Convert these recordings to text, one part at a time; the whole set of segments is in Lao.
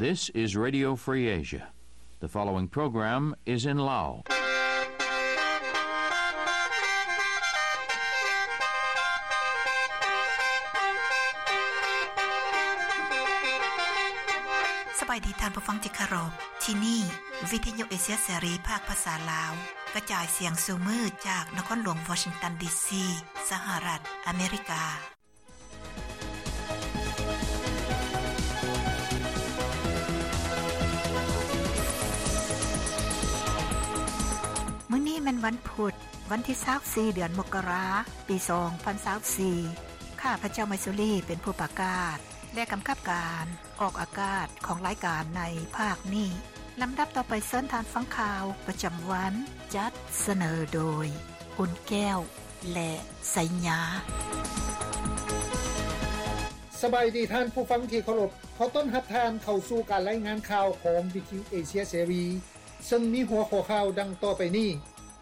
This is Radio Free Asia. The following program is in Lao. ສະບາຍດີທ່ານຜູ້ຟັງທີ່ເຄົາລົບ. ທີ່ນີ້ ວິທະຍຸເອເຊຍເສລີ ພາກພາສາລາວ ກະຈາຍສຽງສູ່ມື້ຈາກນະຄອນຫຼວງວໍຊິງຕັນ ດີຊີ ສະຫະລັດອາເມລິກາ. ມື້ນີ້ແມ່ນວັນພຸດ, ວັນທີຊາວສີ່ ເດືອນມົກກະລາ ປີສອງພັນຊາວສີ່. ຂ້າພະເຈົ້າ ໄມຊູລີ ເປັນຜູ້ປະກາດ ແລະ ກຳກັບການອອກອາກາດຂອງລາຍການໃນພາກນີ້. ລຳດັບຕໍ່ໄປເຊີນທ່ານຟັງຂ່າວປະຈຳວັນ ຈັດສະເໜີໂດຍ ອຸ່ນແກ້ວ ແລະ ໄຊຍາ. ສະບາຍດີທ່ານຜູ້ຟັງທີ່ເຄົາລົບ. ຂໍຕ້ອນຮັບທ່ານເຂົ້າສູ່ການລາຍງານຂ່າວຂອງວິທະຍຸເອເຊຍເສລີ ເຊິ່ງມີຫົວຂໍ້ຂ່າວດັ່ງຕໍ່ໄປນີ້.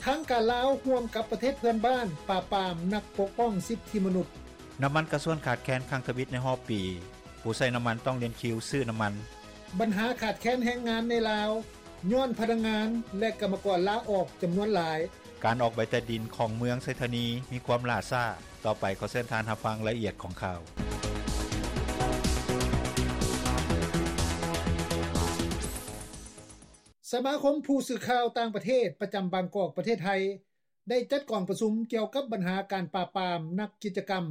ທາງການລາວຮ່ວມກັບປະເທດເພື່ອນບ້ານປາບປາມນັກປົກປ້ອງສິດທິມະນຸດ. ນ້ຳມັນກາຊວນຂາດແຄນຄັ້ງທຳອິດໃນຮອບປີ, ຜູ້ໃຊ້ນ້ຳມັນຕ້ອງລຽນຄິວຊື້ນ້ຳມັນ. ບັນຫາຂາດແຄນແຮງງານໃນລາວ ຍ້ອນພະນັກງານ ແລະ ກຳມະກອນລາອອກຈຳນວນຫຼາຍ. ການອອກໃບຕາດິນຂອງເມືອງໄຊທານີມີຄວາມຫຼ້າຊ້າ. ຕໍ່ໄປຂໍເຊີນທ່ານຮັບຟັງລາຍລະອຽດຂອງຂ່າວ. ສະມາຄົມຜູ້ສື່ຂ່າວຕ່າງປະເທດປະຈຳບາງກອກ ປະເທດໄທ ໄດ້ຈັດກອງປະຊຸມກ່ຽວກັບບັນຫາການປາບປາມນັກກິດຈະກຳ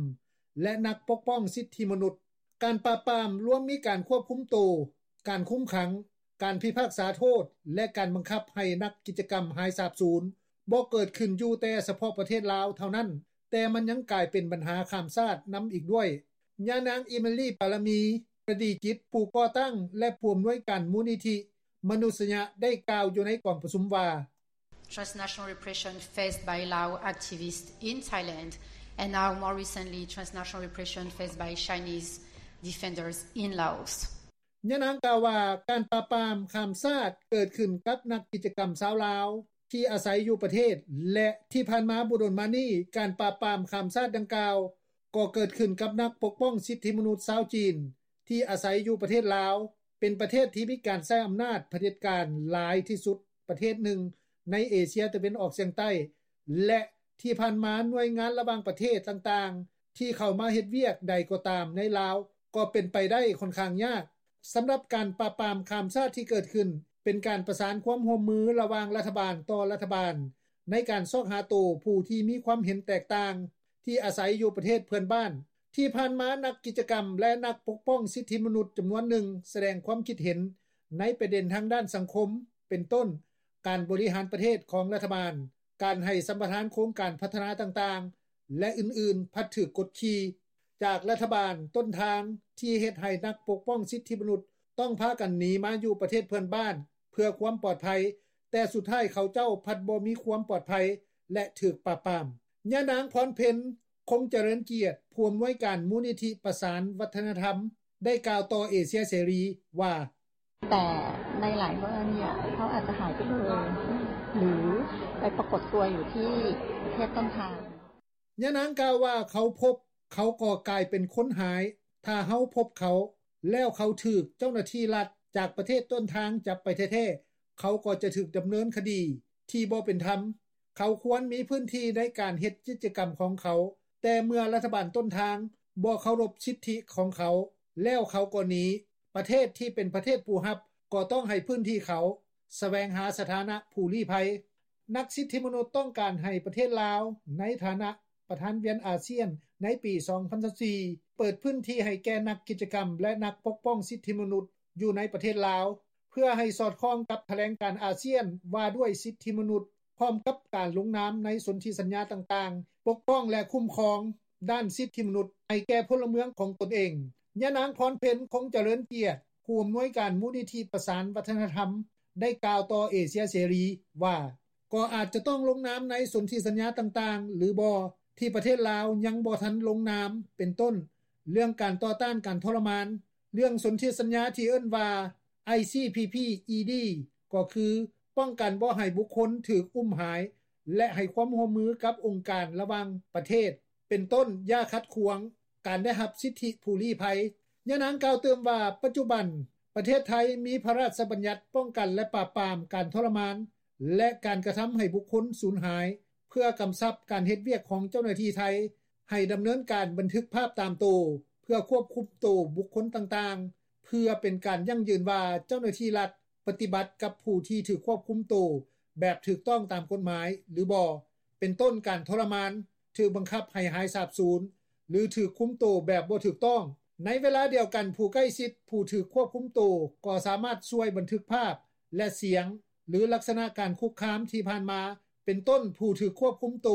ແລະ ນັກປົກປ້ອງສິດທິມະນຸດ. ການປາບປາມລວມມີການຄວບຄຸມໂຕ, ການຄຸມຂັງ, ການພິພາກສາໂທດ ແລະ ການບັງຄັບໃຫ້ນັກກິດຈະກຳຫາຍສາບສູນ ບໍ່ເກີດຂຶ້ນຢູ່ແຕ່ສະເພາະປະເທດລາວເທົ່ານັ້ນ, ແຕ່ມັນຍັງກາຍເປັນບັນຫາຂ້າມຊາດນຳອີກດ້ວຍ. ຍານາງ ອີເມລີ ປາລະມີ ປະດີຈິດ ຜູ້ກໍ່ຕັ້ງ ແລະ ຜູ້ອຳນວຍການມູນນິທິມະນຸດສະຍະ ໄດ້ກ່າວຢູ່ໃນກອງປະຊຸມວ່າ Transnational repression faced by Lao activists in Thailand, and now more recently, transnational repression faced by Chinese defenders in Laos. ຍານາງກ່າວວ່າ ການປາບປາມຂ້າມຊາດເກີດຂຶ້ນກັບນັກກິດຈະກຳຊາວລາວທີ່ອາໄສຢູ່ປະເທດ ແລະ ທີ່ຜ່ານມາບໍ່ດົນມານີ້ ການປາບປາມຂ້າມຊາດດັ່ງກ່າວກໍເກີດຂຶ້ນກັບນັກປົກປ້ອງສິດທິມະນຸດຊາວຈີນ ທີ່ອາໄສຢູ່ປະເທດລາວ, ເປັນປະເທດທີ່ມີການໃຊ້ອຳນາດຜະເດັດການຫຼາຍທີ່ສຸດປະເທດໜຶ່ງໃນເອເຊຍຕາເວັນອອກສຽງໃຕ້ ແລະ ທີ່ຜ່ານມາໜ່ວຍງານລະຫວ່າງປະເທດຕ່າງໆ ທີ່ເຂົ້າມາເຮັດວຽກໃດກໍຕາມໃນລາວ ກໍເປັນໄປໄດ້ຂ້ອນຂ້າງຍາກ. ສຳລັບການປາບປາມຂ້າມຊາດທີ່ເກີດຂຶ້ນ ເປັນການປະສານຄວາມຮ່ວມມືລະຫວ່າງລັດຖະບານຕໍ່ລັດຖະບານ ໃນການຊອກຫາໂຕຜູ້ທີ່ມີຄວາມເຫັນແຕກຕ່າງ ທີ່ອາໄສຢູ່ປະເທດເພື່ອນບ້ານ. ທີ່ຜ່ານມາ ນັກກິດຈະກຳ ແລະ ນັກປົກປ້ອງສິດທິມະນຸດຈຳນວນໜຶ່ງສະແດງຄວາມຄິດເຫັນໃນປະເດັນທາງດ້ານສັງຄົມ ເປັນຕົ້ນ ການບໍລິຫານປະເທດຂອງລັດຖະບານ, ການໃຫ້ສຳປະທານໂຄງການພັດທະນາຕ່າງໆ ແລະ ອື່ນໆ ພັດຖືກກົດຂີ່ຈາກລັດຖະບານຕົ້ນທາງ ທີ່ເຮັດໃຫ້ນັກປົກປ້ອງສິດທິມະນຸດຕ້ອງພາກັນໜີມາຢູ່ປະເທດເພື່ອນບ້ານເພື່ອຄວາມປອດໄພ, ແຕ່ສຸດທ້າຍເຂົາເຈົ້າພັດບໍ່ມີຄວາມປອດໄພ ແລະ ຖືກປາບປາມ. ຍານາງ ພອນເພັນ ຄົງຈະເລີນກຽດ ຜູ້ອຳນວຍການມູນນິທິປະສານວັດທະນະທຳ ໄດ້ກ່າວຕໍ່ເອເຊຍເສລີວ່າ แต่ในหลายกรณีอะ เขาอาจจะหายไปเลย หรือไปปรากฏตัวอยู่ที่ประเทศต้นทาง ຍານາງກ່າວວ່າ ເຂົາພົບ ເຂົາກໍກາຍເປັນຄົນຫາຍ. ຖ້າເຮົາພົບເຂົາ ແລ້ວເຂົາຖືກເຈົ້າໜ້າທີ່ລັດຈາກປະເທດຕົ້ນທາງຈັບໄປແທ້ໆ ເຂົາກໍຈະຖືກດຳເນີນຄະດີທີ່ບໍ່ເປັນທຳ. ເຂົາຄວນມີພື້ນທີ່ໃນການເຮັດກິດຈະກຳຂອງເຂົາ, ແຕ່ເມື່ອລັດຖະບານຕົ້ນທາງບໍ່ເຄົາລົບສິດທິຂອງເຂົາ ແລ້ວເຂົາກໍໜີ. ປະເທດທີ່ເປັນປະເທດຜູ້ຮັບກໍຕ້ອງໃຫ້ພື້ນທີ່ເຂົາ, ສະແຫວງຫາສະຖານະຜູ້ລີ້ໄພ. ນັກສິດທິມະນຸດຕ້ອງການໃຫ້ປະເທດລາວ ໃນຖານະປະທານວຽນອາຊຽນໃນປີສອງພັນຊາວສີ່ ເປີດພື້ນທີ່ໃຫ້ແກ່ນັກກິດຈະກຳ ແລະ ນັກປົກປ້ອງສິດທິມະນຸດຢູ່ໃນປະເທດລາວ ເພື່ອໃຫ້ສອດຄ່ອງກັບຖະແຫຼງການອາຊຽນວ່າດ້ວຍສິດທິມະນຸດ ພ້ອມກັບການລົງນາມໃນສົນທິສັນຍາຕ່າງໆ ປົກປ້ອງ ແລະ ຄຸ້ມຄອງດ້ານສິດທິມະນຸດໃຫ້ແກ່ພົນລະເມືອງຂອງຕົນເອງ. ຍານາງ ພອນເພັນ ຄົງຈະເລີນກຽດ ຜູ້ອຳນວຍການມູນນິທິປະສານວັດທະນະທຳ ໄດ້ກ່າວຕໍ່ເອເຊຍເສລີວ່າ ກໍອາດຈະຕ້ອງລົງນາມໃນສົນທິສັນຍາຕ່າງໆ ຫຼືບໍ່ ທີ່ປະເທດລາວຍັງບໍ່ທັນລົງນາມ ເປັນຕົ້ນ ເລື່ອງການຕໍ່ຕ້ານການທໍລະມານ, ເລື່ອງສົນທິສັນຍາທີ່ເອີ້ນວ່າ ໄອຊີພີພີອີດີ ກໍຄືປ້ອງກັນບໍ່ໃຫ້ບຸກຄົນຖືກອຸ້ມຫາຍ ແລະ ໃຫ້ຄວາມຮ່ວມມືກັບອົງການລະຫວ່າງປະເທດ ເປັນຕົ້ນ ຢ່າຂັດຂວາງການໄດ້ຮັບສິດທິຜູ້ລີ້ໄພ. ຍານາງກ່າວຕື່ມວ່າ ປັດຈຸບັນປ ປະເທດໄທ ມີພະຣາຊບັນຍັດປ້ອງກັນ ແລະ ປາບປາມການທໍລະມານ ແລະ ການກະທຳໃຫ້ບຸກຄົນສູນຫາຍ ເພື່ອກຳຊັບການເຮັດວຽກຂອງເຈົ້າໜ້າທີ່ໄທ ໃຫ້ດຳເນີນການບັນທຶກພາບຕາມໂຕ ເພື່ອຄວບຄຸມໂຕບຸກຄົນຕ່າງໆ ເພື່ອເປັນການຢັ້ງຢືນວ່າເຈົ້າໜ້າທີ່ລັດ ປະຕິບັດກັບຜູ້ທີ່ຖືກຄວບຄຸມໂຕ ແບບຖືກຕ້ອງຕາມກົດໝາຍ ຫຼືບໍ່ ເປັນຕົ້ນການທໍລະມານ, ຖືກບັງຄັບໃຫ້ຫາຍສາບສູນ ຫຼື ຖືກຄຸມໂຕແບບບໍ່ຖືກຕ້ອງ. ໃນເວລາດຽວກັນ ຜູ້ໃກ້ຊິດຜູ້ຖືກຄວບຄຸມໂຕ ກໍສາມາດຊ່ວຍບັນທຶກພາບ ແລະ ສຽງ ຫຼື ລັກສະນະການຄຸກຄາມທີ່ຜ່ານມາ ເປັນຕົ້ນຜູ້ຖືກຄວບຄຸມໂຕ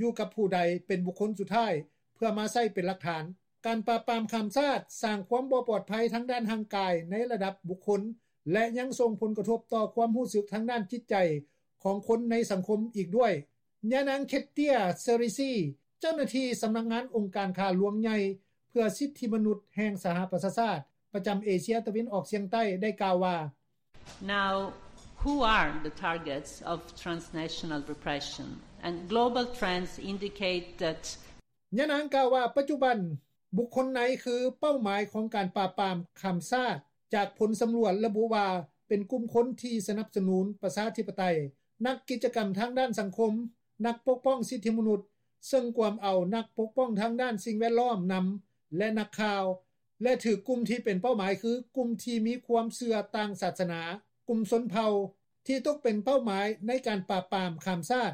ຢູ່ກັບຜູ້ໃດ ເປັນບຸກຄົນສຸດທ້າຍ ເພື່ອມາໃຊ້ເປັນຫຼັກຖານ. ການປາບປາມຂ້າມຊາດ ສ້າງຄວາມບໍ່ປອດໄພທາງດ້ານຮ່າງກາຍ ໃນລະດັບບຸກຄົນ ແລະ ຍັງສົ່ງຜົນກະທົບຕໍ່ຄວາມຮູ້ສຶກທາງດ້ານຈິດໃຈ ຂອງຄົນໃນສັງຄົມອີກດ້ວຍ. ຍານາງ ເຄດເຕຍ ເຊີຣິຊີ ເຈົ້າໜ້າທີ່ສຳນັກງານອົງການຂ້າຫຼວງໃຫຍ່ ເພື່ອສິດທິມະນຸດແຫ່ງສະຫະປະຊາຊາດ ປະຈຳເອເຊຍຕາເວັນອອກສ່ຽງໃຕ້ ໄດ້ກ່າວວ່າ: Now, who are the targets of transnational repression? And global trends indicate that ຍານາງກ່າວວ່າ ປັດຈຸບັນ ບຸກຄົນໃນຄືເປົ້າໝາຍຂອງການປາບປາມຂ້າມຊາດ ຈາກຜົນສຳຫຼວດລະບຸວ່າ ເປັນກຸ່ມຄົນທີ່ສະໜັບສະໜູນປະຊາທິປະໄຕ, ນັກກິດຈະກຳທາງດ້ານສັງຄົມ, ນັກປົກປ້ອງສິດທິມະນຸດ ເຊິ່ງກວມເອົານັກປົກປ້ອງທາງດ້ານສິ່ງແວດລ້ອມນຳ ແລະ ນັກຂ່າວ ແລະ ຖືກກຸ່ມທີ່ເປັນເປົ້າໝາຍຄືກຸ່ມທີ່ມີຄວາມເຊື່ອຕ່າງສາສະໜາ, ກຸ່ມຊົນເຜົ່າ ທີ່ຕົກເປັນເປົ້າໝາຍໃນການປາບປາມຂ້າມຊາດ.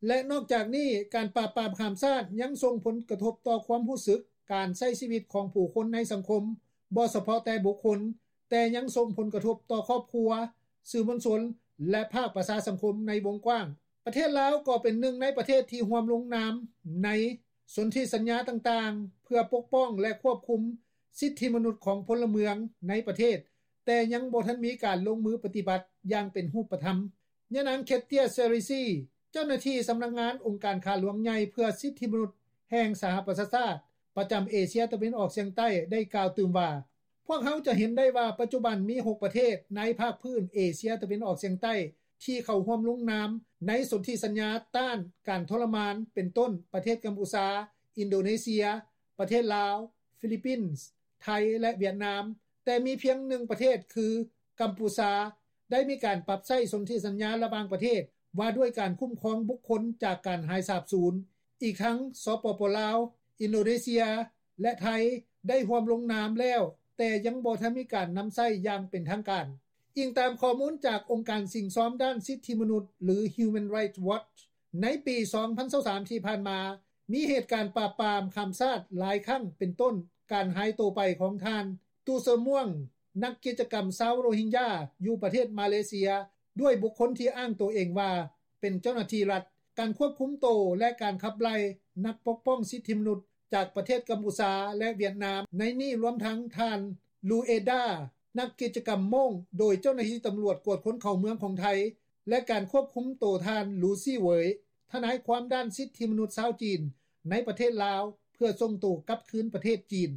ແລະ ນອກຈາກນີ້ ການປາບປາມຂ້າມຊາດຍັງສົ່ງຜົນກະທົບຕໍ່ຄວາມຮູ້ສຶກການໃຊ້ຊີວິດຂອງຜູ້ຄົນໃນສັງຄົມ ບໍ່ສະເພາະແຕ່ບຸກຄົນ ແຕ່ຍັງສົ່ງຜົນກະທົບຕໍ່ຄອບຄົວ, ສື່ມວນຊົນ ແລະ ພາກປະຊາສັງຄົມໃນວົງກວ້າງ. ປະເທດລາວກໍເປັນໜຶ່ງໃນປະເທດທີ່ຮ່ວມລົງນາມໃນສົນທິສັນຍາຕ່າງໆ ເພື່ອປົກປ້ອງ ແລະ ຄວບຄຸມສິດທິມະນຸດຂອງພົນລະເມືອງໃນປະເທດ, ແຕ່ຍັງບໍ່ທັນມີການລົງມືປະຕິບັດຢ່າງເປັນຮູບປະທຳ. ຍານາງ ເຄດເຕຍ ເຊີຣິຊີ ເຈົ້າໜ້າທີ່ສຳນັກງານອົງການຂ້າຫຼວງໃຫຍ່ເພື່ອສິດທິມະນຸດແຫ່ງສະຫະປະຊາຊາດ ປະຈຳເອເຊຍຕາເວັນອອກສ່ຽງໃຕ້ ໄດ້ກ່າວຕື່ມວ່າ: ພວກເຮົາຈະເຫັນໄດ້ວ່າ ປັດຈຸບັນມີຫົກປະເທດໃນພາກພື້ນເອເຊຍຕາເວັນອອກສ່ຽງໃຕ້ ທີ່ເຂົ້າຮ່ວມລົງນາມໃນສົນທິສັນຍາຕ້ານການທໍລະມານ ເປັນຕົ້ນ ປະເທດກຳປູຊາ, ອິນໂດເນເຊຍ, ປະເທດລາວ, ຟີລິບປິນ, ໄທ ແລະ ຫວຽດນາມ, ແຕ່ມີພຽງໜຶ່ງປະເທດ ຄື ກຳປູຊາ ໄດ້ມີການປັບໃຊ້ສົນທິສັນຍາລະຫວ່າງປະເທດ ວ່າດ້ວຍການຄຸ້ມຄອງບຸກຄົນຈາກການຫາຍສາບສູນ. ອີກທັງ ສປປ ລາວ, ອິນໂດເນເຊຍ ແລະ ໄທ ໄດ້ຮ່ວມລົງນາມແລ້ວ, ແຕ່ຍັງບໍ່ທັນມີການນຳໃຊ້ຢ່າງເປັນທາງການ. ອີງຕາມຂໍ້ມູນຈາກອົງການສິ້ງຊອມດ້ານສິດທິມະນຸດ ຫຼື Human Rights Watch, ໃນປີສອງພັນຊາວສາມ ທີ່ຜ່ານມາ, ມີເຫດການປາບປາມຂ້າມຊາດຫຼາຍຄັ້ງ ເປັນຕົ້ນ ການຫາຍໂຕໄປຂອງທ່ານ ຕູເຊີມວງ ນັກກິດຈະກຳຊາວໂຣຮິງຢາ ຢູ່ປະເທດມາເລເຊຍ ດ້ວຍບຸກຄົນທີ່ອ້າງໂຕເອງວ່າເປັນເຈົ້າໜ້າທີ່ລັດ, ການຄວບຄຸມໂຕ ແລະ ການຂັບໄລ່ນັກປົກປ້ອງສິດທິມະນຸດຈາກປະເທດກຳປູຊາ ແລະ ຫວຽດນາມ ໃນນີ້ລວມທັງທ່ານ ລູເອດາ ນັກກິດຈະກຳໂມ້ງ ໂດຍເຈົ້າໜ້າທີ່ຕຳຫຼວດກວດຄົນເຂົ້າເມືອງຂອງໄທ ແລະ ການຄວບຄຸມໂຕທ່ານ ລູຊີ ເຫວີຍ ທະນາຍຄວາມດ້ານສິດທິມະນຸດຊາວຈີນໃນປະເທດລາວ ເພື່ອສົ່ງໂຕກັບຄືນປະເທດຈີນ.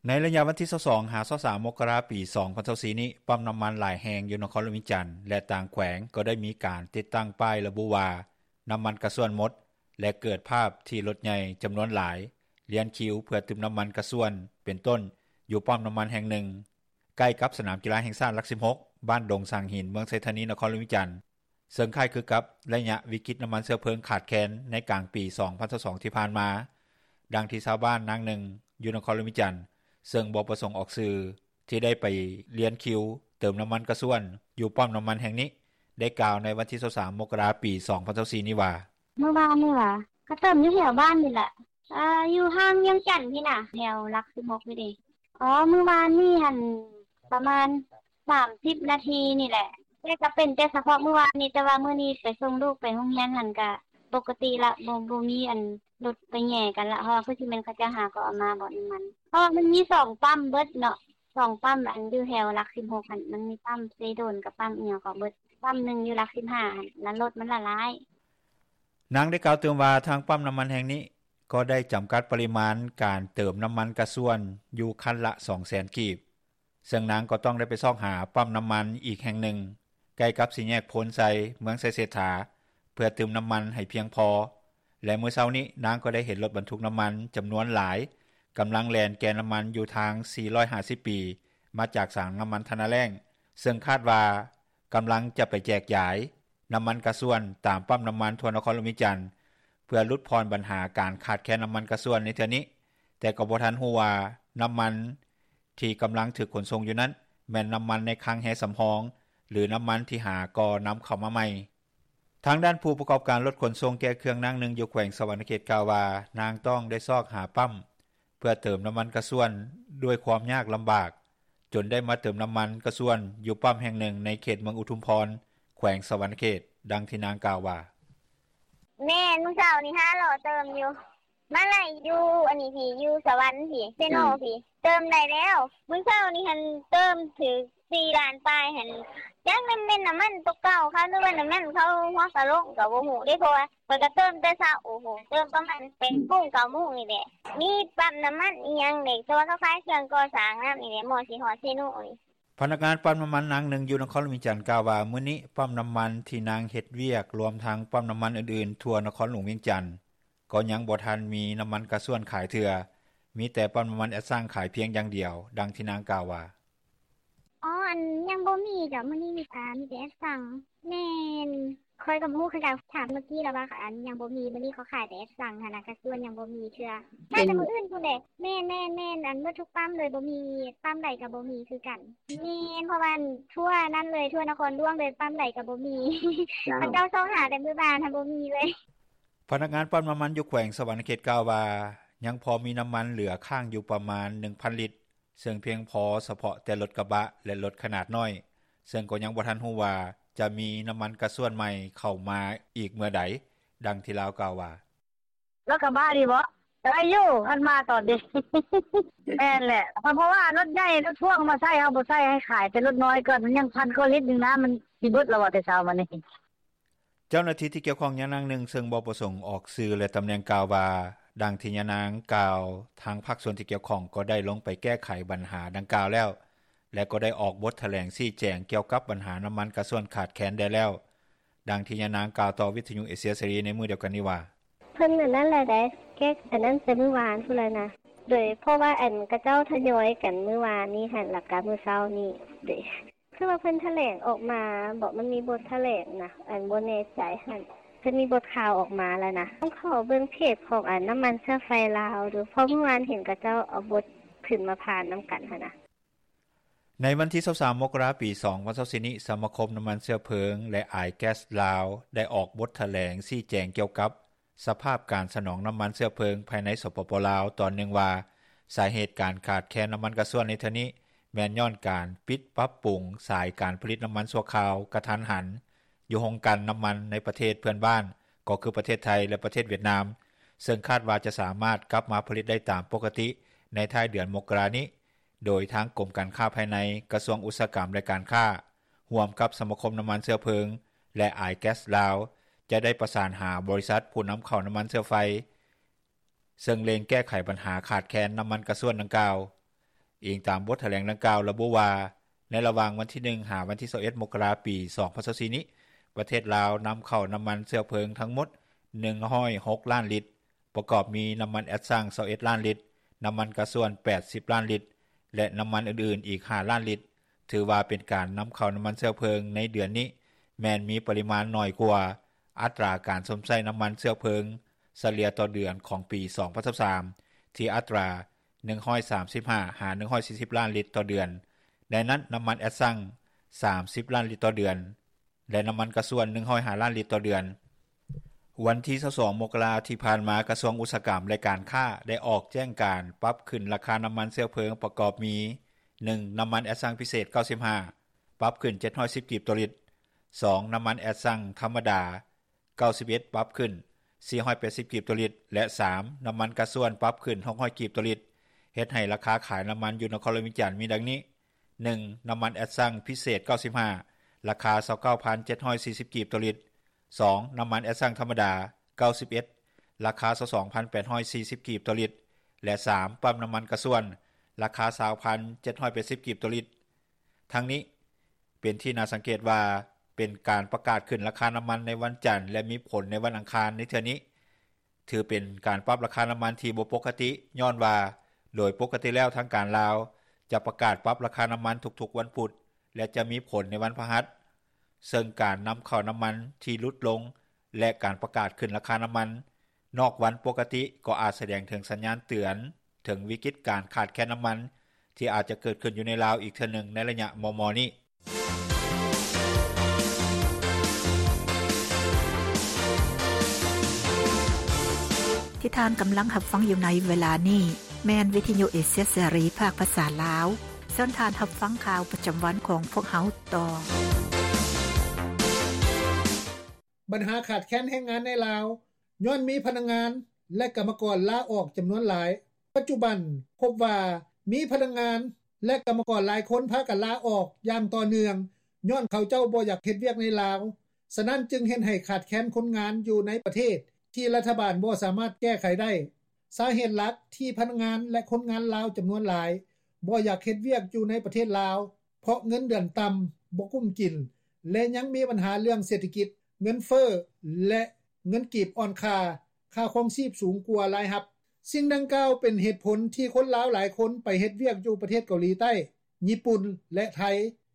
ໃນໄລຍະວັນທີຊາວສອງ ຫາ ຊາວສາມ ມົກກະລາ ປີສອງພັນຊາວສີ່ນີ້, ປ້ຳນ້ຳມັນຫຼາຍແຫ່ງຢູ່ນະຄອນຫຼວງວຽງຈັນ ແລະ ຕ່າງແຂວງ ກໍໄດ້ມີການຕິດຕັ້ງປ້າຍລະບຸວ່າ ນ້ຳມັນກະຊວນໝົດ ແລະ ເກີດພາບທີ່ລົດໃຫຍ່ຈຳນວນຫຼາຍລຽນຄິວເພື່ອຕື່ມນ້ຳມັນກະຊວນ ເປັນຕົ້ນ ຢູ່ປ້ຳນ້ຳມັນແຫ່ງໜຶ່ງ ໃກ້ກັບສະໜາມກິລາແຫ່ງຊາດຫຼັກສິບຫົກ ບ້ານດົງສາງຫີນ ເມືອງໄຊທານີ ນະຄອນຫຼວງວຽງຈັນ. ເຊິ່ງຄ້າຍຄືກັບໄລຍະວິກິດນ້ຳມັນເຊື້ອເພີງຂາດແຄນໃນກາງປີສອງພັນຊາວສອງທີ່ຜ່ານມາ, ດັ່ງທີ່ຊາວບ້ານນາງໜຶ່ງຢູ່ນະຄອນຫຼວງວຽງຈັນ ເຊິ່ງບໍ່ປະສົງອອກຊື່ ທີ່ໄດ້ໄປລຽນຄິວເຕີມນ້ຳມັນກະຊວນຢູ່ປ້ຳນ້ຳມັນແຫ່ງນີ້ ໄດ້ກ່າວໃນວັນທີຊາວສາມ ມົກກະລາ ປີສອງພັນຊາວສີ່ນີ້ວ່າ: ມື້ວານນີ້ຫວາ? ກະເຕີມຢູ່ແຖວບ້ານນີ້ແຫຼະ. ອ່າ ຢູ່ຫ່າງວຽງຈັນພີ້ນະ ແຖວຫຼັກສິບຫົກພີ້ເດ. ອໍ ມື້ວານນີ້ຫັ້ນ ປະມານສາມສິບນາທີນີ້ແຫຼະ, ແຕ່ກະເປັນແຕ່ສະເພາະມື້ວານນີ້, ແຕ່ວ່າມື້ນີ້ໄປສົ່ງລູກໄປໂຮງຮຽນຫັ້ນກະປົກກະຕິລະ, ບໍ່ ບໍ່ມີອັນລົດໄປແຫຍ່ກັນລະ, ເພາະວ່າຄືຊິແມ່ນເຂົາເຈົ້າຫາກໍເອົາມາບໍ່ນ້ຳມັນ, ເພາະວ່າມັນມີສອງປ້ຳເບິດເນາະ, ສອງປ້ຳ ອັນຢູ່ແຖວຫຼັກສິບຫົກຫັ້ນ ມັນມີປ້ຳເຊໂດນກັບປ້ຳອີ່ຫຍັງກໍເບິດ, ປ້ຳໜຶ່ງຢູ່ຫຼັກສິບຫ້າຫັ້ນ ລະລົດມັນລະຫຼາຍ. ນາງໄດ້ກ່າວຕື່ມວ່າ ທາງປ້ຳນ້ຳມັນແຫ່ງນີ້ ກໍໄດ້ຈຳກັດປະລິມານການເຕີມນ້ຳມັນກະຊວນຢູ່ຄັນລະສອງແສນກີບ, ເຊິ່ງນາງກໍຕ້ອງໄດ້ໄປຊອກຫາປ້ຳນ້ຳມັນອີກແຫ່ງໜຶ່ງ ໃກ້ກັບສີ່ແຍກໂພນໄຊ ເມືອງໄຊເສດຖາ ເພື່ອຕື່ມນ້ຳມັນໃຫ້ພຽງພໍ ແລະ ມື້ເຊົ້ານີ້ນາງກໍໄດ້ເຫັນລົດບັນທຸກນ້ຳມັນຈຳນວນຫຼາຍ ກຳລັງແລ່ນແກ່ນ້ຳມັນຢູ່ທາງສີ່ຮ້ອຍຫ້າສິບປີ ມາຈາກສາງນໍ້າມັນທະນາແລ້ງ ເຊິ່ງຄາດວ່າກຳລັງຈະໄປແຈກຢາຍນໍ້າມັນກາຊວນ ຕາມປ້ຳນໍ້າມັນທົ່ວນະຄອນຫຼວງວຽງຈັນ ເພື່ອຫຼຸດຜ່ອນບັນຫາການຂາດແຄນນໍ້າມັນກາຊວນໃນເທື່ອນີ້, ແຕ່ກໍບໍ່ທັນຮູ້ວ່ານໍ້າມັນທີ່ກຳລັງຖືກຂົນສົ່ງຢູ່ນັ້ນ ແມ່ນນໍ້າມັນໃນຄັງແຮ່ສຳຮອງ ຫຼື ນໍ້າມັນທີ່ຫາກໍນຳເຂົ້າມາໃໝ່. ທາງດ້ານຜູ້ປະກອບການລົດຂົນສົ່ງແກ່ເຄື່ອງນາງໜຶ່ງ ຢູ່ແຂວງສະຫວັນນະເຂດ ກ່າວວ່າ ນາງຕ້ອງໄດ້ຊອກຫາປ້ຳ ເພື່ອເຕີມນໍ້າມັນກາຊວນດ້ວຍຄວາມຍາກລຳບາກ ຈົນໄດ້ມາເຕີມນໍ້າມັນກາຊວນຢູ່ປ້ຳແຫ່ງໜຶ່ງໃນເຂດເມືອງອຸທຸມພອນ ແຂວງສະຫວັນນະເຂດ. ດັ່ງທີ່ນາງກ່າວວ່າ: “ແມ່ນ ມື້ເຊົ້ານີ້ຫາເລາະເຕີມຢູ່ ມາໄລ່ຢູ່ອັນນີ້ພີ້ ຢູ່ສະຫວັນພີ້ ເຊໂນພີ້ ເຕີມໄດ້ແລ້ວ. ມື້ເຊົ້ານີ້ຫັ້ນເຕີມຖືກສີ່ລ້ານປາຍຫັ້ນ ຈັກແມ່ນ ແມ່ນນໍ້າມັນໂຕເກົ່າເຂົາ ຫຼືວ່ານໍ້າມັນເຂົາຫົວກະໂຫຼກ ກໍບໍ່ຮູ້ເດ້ ເພາະວ່າຂ້ອຍກໍເຕີມແຕ່ເຊົ້າ ໂອ້ໂຫ ເຕີມປະມານແປດໂມງ ເກົ້າໂມງນີ້ແຫຼະ. ມີປ້ຳນໍ້າມັນອີ່ຫຍັງເດ້ ເພາະວ່າເຂົາຂາຍເຄື່ອງກໍ່ສ້າງນຳນີ້ແຫຼະ ໝໍ້ຊິຮອດເຊໂນນີ້.” ພະນັກງານປ້ຳນໍ້າມັນນາງໜຶ່ງຢູ່ນະຄອນຫຼວງວຽງຈັນ ກ່າວວ່າ ມື້ນີ້ປ້ຳນໍ້າມັນທີ່ນາງເຮັດວຽກ ລວມທັງປ້ຳນໍ້າມັນອື່ນໆທົ່ວນະຄອນຫຼວງວຽງຈັນ ກໍຍັງບໍ່ທັນມີນໍ້າມັນກາຊວນຂາຍເທື່ອ, ມີແຕ່ປ້ຳນໍ້າມັນແອັດຊັງຂາຍພຽງຢ່າງດຽວ. ດັ່ງທີ່ນາງກ່າວວ່າ: “ອໍ ອັນ ຍັງບໍ່ມີເຈົ້າ ມື້ນີ້ມີ ອາ ມີແຕ່ແອັດຊັງ. ແມ່ນ ຂ້ອຍກໍບໍ່ຮູ້ຄືກັນ ຖາມເມື່ອກີ້ລະວ່າ ອັນ ຍັງບໍ່ມີ ມື້ນີ້ເຂົາຂາຍແຕ່ແອັດຊັງຫັ້ນນະ ກາຊວນຍັງບໍ່ມີເທື່ອ ໜ້າຈະມື້ອື່ນພຸ້ນແຫຼະ. ແມ່ນໆໆ ອັນ ໝົດທຸກປ້ຳເລີຍ ບໍ່ມີ ປ້ຳໃດກໍບໍ່ມີຄືກັນ. ແມ່ນ ເພາະວ່າ ອັນ ທົ່ວນັ້ນເລີຍ ທົ່ວນະຄອນຫຼວງເລີຍ ປ້ຳໃດກໍບໍ່ມີ ເຂົາເຈົ້າຊອກຫາແຕ່ມື້ວານຫັ້ນ ບໍ່ມີເລີຍ.” ພະນັກງານປ້ຳນໍ້າມັນຢູ່ແຂວງສະຫວັນນະເຂດ ກ່າວວ່າ ຍັງພໍມີນໍ້າມັນເຫຼືອຄ້າງຢູ່ປະມານໜຶ່ງພັນລິດ ເຊິ່ງພຽງພໍສະເພາະແຕ່ລົດກະບະ ແລະ ລົດຂະໜາດນ້ອຍ, ເຊິ່ງກໍຍັງບໍ່ທັນຮູ້ວ່າຈະມີນໍ້າມັນກາຊວນໃໝ່ເຂົ້າມາອີກເມື່ອໃດ. ດັ່ງທີ່ລາວກ່າວວ່າ: “ລົດກະບະນີ້ບໍ ໄດ້ຢູ່ ຄັນມາຕອນນີ້. ແມ່ນແຫຼະ ເພາະວ່າລົດໃຫຍ່ ລົດພ່ວງມາໃຊ້ ເຮົາບໍ່ໃຊ້ ໃຫ້ຂາຍແຕ່ລົດນ້ອຍກ່ອນ ມັນຍັງພັນກວ່າລິດໜຶ່ງນະ ມັນຊິເບິດແລ້ວບໍ່ ແຕ່ເຊົ້າມານີ້.” ເຈົ້າໜ້າທີ່ທີ່ກ່ຽວຂ້ອງຢ່າງນາງໜຶ່ງ ເຊິ່ງບໍ່ປະສົງອອກຊື່ ແລະ ຕຳແໜ່ງ ກ່າວວ່າ ດັ່ງທີ່ຍານາງກ່າວ ທາງພາກສ່ວນທີ່ກ່ຽວຂ້ອງກໍໄດ້ລົງໄປແກ້ໄຂບັນຫາດັ່ງກ່າວແລ້ວ ແລະ ກໍໄດ້ອອກບົດຖະແຫຼງຊີ້ແຈງກ່ຽວກັບບັນຫານໍ້າມັນກາຊວນຂາດແຄນໄດ້ແລ້ວ. ດັ່ງທີ່ຍານາງກ່າວຕໍ່ວິທຍຸເອເຊຍເສລີໃນມື້ດຽວກັນນີ້ວ່າ: “ເພິ່ນອັນນັ້ນແຫຼະໃດ ແກ້ອັນນັ້ນແຕ່ມື້ວານພຸ້ນແຫຼະນະ ໂດຍ ເພາະວ່າ ອັນ ຂະເຈົ້າທະຍອຍກັນມື້ວານນີ້ຫັ້ນ ແລ້ວກະມື້ເຊົ້ານີ້ ໂດຍ ຄືວ່າເພິ່ນຖະແຫຼງອອກມາບໍ ມັນມີບົດຖະແຫຼງນະ ອັນ ບໍ່ແນ່ໃຈຫັ້ນ ເພິ່ນມີບົດຂ່າວອອກມາແລ້ວນະ ຕ້ອງເຂົ້າເບິ່ງເພຈຂອງ ອັນ ນໍ້າມັນເຊື້ອໄຟລາວດູ ເພາະມື້ວານເຫັນຂະເຈົ້າເອົາບົດຂຶ້ນມາຜ່ານນຳກັນຫັ້ນນະ.” ໃນວັນທີຊາວສາມ ມົກກະລາ ປີສອງພັນຊາວສີ່ນີ້ ສະມາຄົມນໍ້າມັນເຊື້ອເພີງ ແລະ ອາຍແກັສລາວ ໄດ້ອອກບົດຖະແຫຼງຊີ້ແຈງກ່ຽວກັບສະພາບການສະໜອງນໍ້າມັນເຊື້ອເພີງພາຍໃນ ສປປ ລາວ ຕອນໜຶ່ງວ່າ ສາເຫດການຂາດແຄນນໍ້າມັນກາຊວນໃນເທື່ອນີ້ ແມ່ນຍ້ອນການປິດປັບປຸງສາຍການຜະລິດນໍ້າມັນຊົ່ວຄາວກະທັນຫັນ ຢູ່ໂຮງກັ່ນນໍ້າມັນໃນປະເທດເພື່ອນບ້ານ ກໍຄືປະເທດໄທ ແລະ ປະເທດຫວຽດນາມ ເຊິ່ງຄາດວ່າຈະສາມາດກັບມາຜະລິດໄດ້ຕາມປົກກະຕິໃນທ້າຍເດືອນມົກກະລານີ້. ໂດຍທາງກົມການຄ້າພາຍໃນ, ກະຊວງອຸດສາຫະກຳ ແລະ ການຄ້າ ຮ່ວມກັບສະມາຄົມນໍ້າມັນເຊື້ອເພີງ ແລະ ອາຍແກັສລາວ ຈະໄດ້ປະສານຫາບໍລິສັດຜູ້ນຳເຂົ້ານໍ້າມັນເຊື້ອໄຟ ເຊິ່ງເລັ່ງແກ້ໄຂບັນຫາຂາດແຄນນໍ້າມັນກາຊວນດັ່ງກ່າວ. ອີງຕາມບົດຖະແຫຼງດັ່ງກ່າວລະບຸວ່າ ໃນລະຫວ່າງວັນທີໜຶ່ງ ຫາວັນທີຊາວເອັດ ມົກກະລາ ປີສອງພັນຊາວສີ່ນີ້ ປະເທດລາວນຳເຂົ້ານໍ້າມັນເຊື້ອເພີງທັງໝົດໜຶ່ງຮ້ອຍຫົກລ້ານລິດ ປະກອບມີນໍ້າມັນແອັດຊັງຊາວເອັດລ້ານລິດ, ນໍ້າມັນກາຊວນແປດສິບລ້ານລິດ ແລະ ນໍ້າມັນອື່ນໆອີກຫ້າລ້ານລິດ. ຖືວ່າເປັນການນຳເຂົ້ານໍ້າມັນເຊື້ອເພີງໃນເດືອນນີ້ ແມ່ນມີປະລິມານໜ້ອຍກວ່າອັດຕາການຊົມໃຊ້ນໍ້າມັນເຊື້ອເພີງສະເລ່ຍຕໍ່ເດືອນຂອງປີສອງພັນຊາວສາມ ທີ່ອັດຕາໜຶ່ງຮ້ອຍສາມສິບຫ້າ ຫາ ໜຶ່ງຮ້ອຍສີ່ສິບລ້ານລິດຕໍ່ເດືອນ, ໃນນັ້ນ ນໍ້າມັນແອັດຊັງສາມສິບລ້ານລິດຕໍ່ເດືອນ ແລະ ນໍ້າມັນກາຊວນໜຶ່ງຮ້ອຍຫ້າລ້ານລິດຕໍ່ເດືອນ. ວັນທີຊາວສອງ ມົກກະລາ ທີ່ຜ່ານມາ ກະຊວງອຸດສາຫະກຳ ແລະ ການຄ້າ ໄດ້ອອກແຈ້ງການປັບຂຶ້ນລາຄານໍ້າມັນເຊື້ອເພີງປະກອບມີ ໜຶ່ງ ນໍ້າມັນແອັດຊັງພິເສດເກົ້າສິບຫ້າ ປັບຂຶ້ນເຈັດຮ້ອຍສິບກີບຕໍ່ລິດ, ສອງ ນໍ້າມັນແອັດຊັງທຳມະດາເກົ້າສິບເອັດ ປັບຂຶ້ນສີ່ຮ້ອຍແປດສິບກີບຕໍ່ລິດ ແລະ ສາມ ນໍ້າມັນກາຊວນປັບຂຶ້ນຫົກຮ້ອຍກີບຕໍ່ລິດ, ເຮັດໃຫ້ລາຄາຂາຍນໍ້າມັນຢູ່ນະຄອນຫຼວງວຽງຈັນມີດັ່ງນີ້: ໜຶ່ງ ນໍ້າມັນແອັດຊັງພິເສດເກົ້າສິບຫ້າ ລາຄາຊາວເກົ້າພັນເຈັດຮ້ອຍສີ່ສິບກີບຕໍ່ລິດ, ສອງ ນໍ້າມັນແອັດຊັງທຳມະດາເກົ້າສິບເອັດ ລາຄາຊາວສອງພັນແປດຮ້ອຍສີ່ສິບກີບຕໍ່ລິດ ແລະ ສາມ ປ້ຳນໍ້າມັນກາຊວນ ລາຄາຊາວພັນເຈັດຮ້ອຍແປດສິບກີບຕໍ່ລິດ. ທັງນີ້ ເປັນທີ່ໜ້າສັງເກດວ່າ ເປັນການປະກາດຂຶ້ນລາຄານໍ້າມັນໃນວັນຈັນ ແລະ ມີຜົນໃນວັນອັງຄານໃນເທື່ອນີ້ ຖືເປັນການປັບລາຄານໍ້າມັນທີ່ບໍ່ປົກກະຕິ ຍ້ອນວ່າໂດຍປົກກະຕິແລ້ວທາງການລາວ ຈະປະກາດປັບລາຄານໍ້າມັນທຸກໆວັນພຸດ ແລະ ຈະມີຜົນໃນວັນພະຫັດ ເຊິ່ງການນຳເຂົ້ານໍ້າມັນທີ່ຫຼຸດລົງ ແລະ ການປະກາດຂຶ້ນລາຄານໍ້າມັນນອກວັນປົກກະຕິ ກໍອາດສະແດງເຖິງສັນຍານເຕືອນເຖິງວິກິດການຂາດແຄນນໍ້າມັນ ທີ່ອາດຈະເກີດຂຶ້ນຢູ່ໃນລາວອີກເທື່ອໜຶ່ງໃນໄລຍະມໍ່ໆນີ້. ທີ່ທ່ານກຳລັງຮັບຟັງຢູ່ໃນເວລານີ້ ແມ່ນວິທະຍຸເອເຊຍເສລີ ພາກພາສາລາວ. ເຊີນທ່ານຮັບຟັງຂ່າວປະຈຳວັນຂອງພວກເຮົາຕໍ່. ບັນຫາຂາດແຄນແຮງງານໃນລາວ ຍ້ອນມີພະນັກງານ ແລະ ກຳມະກອນລາອອກຈຳນວນຫຼາຍ. ປັດຈຸບັນພົບວ່າມີພະນັກງານ ແລະ ກຳມະກອນຫຼາຍຄົນພາກັນລາອອກຢ່າງຕໍ່ເນື່ອງ ຍ້ອນເຂົາເຈົ້າບໍ່ຢາກເຮັດວຽກໃນລາວ, ສະນັ້ນຈຶ່ງເຮັດໃຫ້ຂາດແຄນຄົນງານຢູ່ໃນປະເທດ ທີ່ລັດຖະບານບໍ່ສາມາດແກ້ໄຂໄດ້. ສາເຫດຫຼັກທີ່ພະນັກງານ ແລະ ຄົນງານລາວຈຳນວນຫຼາຍບໍ່ຢາກເຮັດວຽກຢູ່ໃນປະເທດລາວ ເພາະເງິນເດືອນຕ່ຳ, ບໍ່ກຸ້ມກິນ ແລະ ຍັງມີບັນຫາເລື່ອງເສດຖະກິດ, ເງິນເຟີ້ ແລະ ເງິນກີບອ່ອນຄ່າ, ຄ່າຄອງຊີບສູງກວ່າລາຍຮັບ. ສິ່ງດັ່ງກ່າວເປັນເຫດຜົນທີ່ຄົນລາວຫຼາຍຄົນໄປເຮັດວຽກຢູ່ປະເທດເກົາຫຼີໃຕ້, ຍີ່ປຸ່ນ ແລະ ໄທ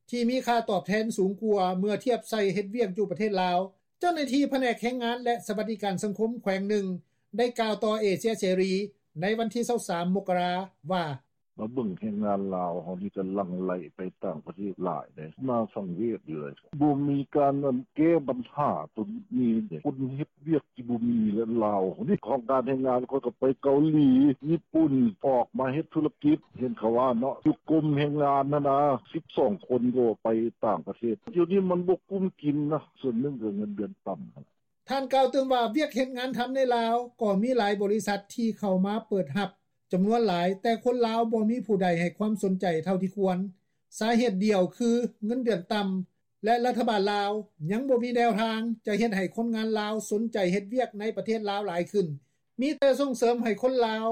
ທີ່ມີຄ່າຕອບແທນສູງກວ່າເມື່ອທຽບໃສ່ເຮັດວຽກຢູ່ປະເທດລາວ. ເຈົ້າໜ້າທີ່ພະແນກແຮງງານ ແລະ ສະຫວັດດີການສັງຄົມແຂວງໜຶ່ງ ໄດ້ກ່າວຕໍ່ເອເຊຍເສລີໃນວັນທີຊາວສາມ ມົກກະລາ ວ່າ: ມາເບິ່ງແຮງງານລາວເຮົານີ້ກໍຫຼັ່ງໄຫຼໄປຕ່າງປະເທດຫຼາຍເດ້ ໜ້າສັງເວດຢູ່ເລີຍ. ບໍ່ມີການແກ້ບັນຫາຕົວນີ້ເດ້ ຄົນເຮັດວຽກທີ່ບໍ່ມີ ແລະ ລາວນີ້ ຂອງການແຮງງານ ເຂົາກໍໄປເກົາຫຼີ, ຍີ່ປຸ່ນ ອອກມາເຮັດທຸລະກິດ ເຫັນເຂົາວ່າເນາະ ຢູ່ກົມແຮງງານຫັ້ນນະ ສິບສອງຄົນກໍໄປຕ່າງປະເທດ. ດຽວນີ້ມັນບໍ່ກຸ້ມກິນນະ ສ່ວນໜຶ່ງກໍເງິນເດືອນຕ່ຳ. ທ່ານກ່າວຕື່ມວ່າ ວຽກເຮັດງານທຳໃນລາວກໍມີຫຼາຍບໍລິສັດທີ່ເຂົ້າມາເປີດຮັບຈຳນວນຫຼາຍ, ແຕ່ຄົນລາວບໍ່ມີຜູ້ໃດໃຫ້ຄວາມສົນໃຈເທົ່າທີ່ຄວນ. ສາເຫດດຽວຄືເງິນເດືອນຕ່ຳ ແລະ ລັດຖະບານລາວຍັງບໍ່ມີແນວທາງຈະເຮັດໃຫ້ຄົນງານລາວສົນໃຈເຮັດວຽກໃນປະເທດລາວຫຼາຍຂຶ້ນ. ມີແຕ່ສົ່ງເສີມໃຫ້ຄົນລາວ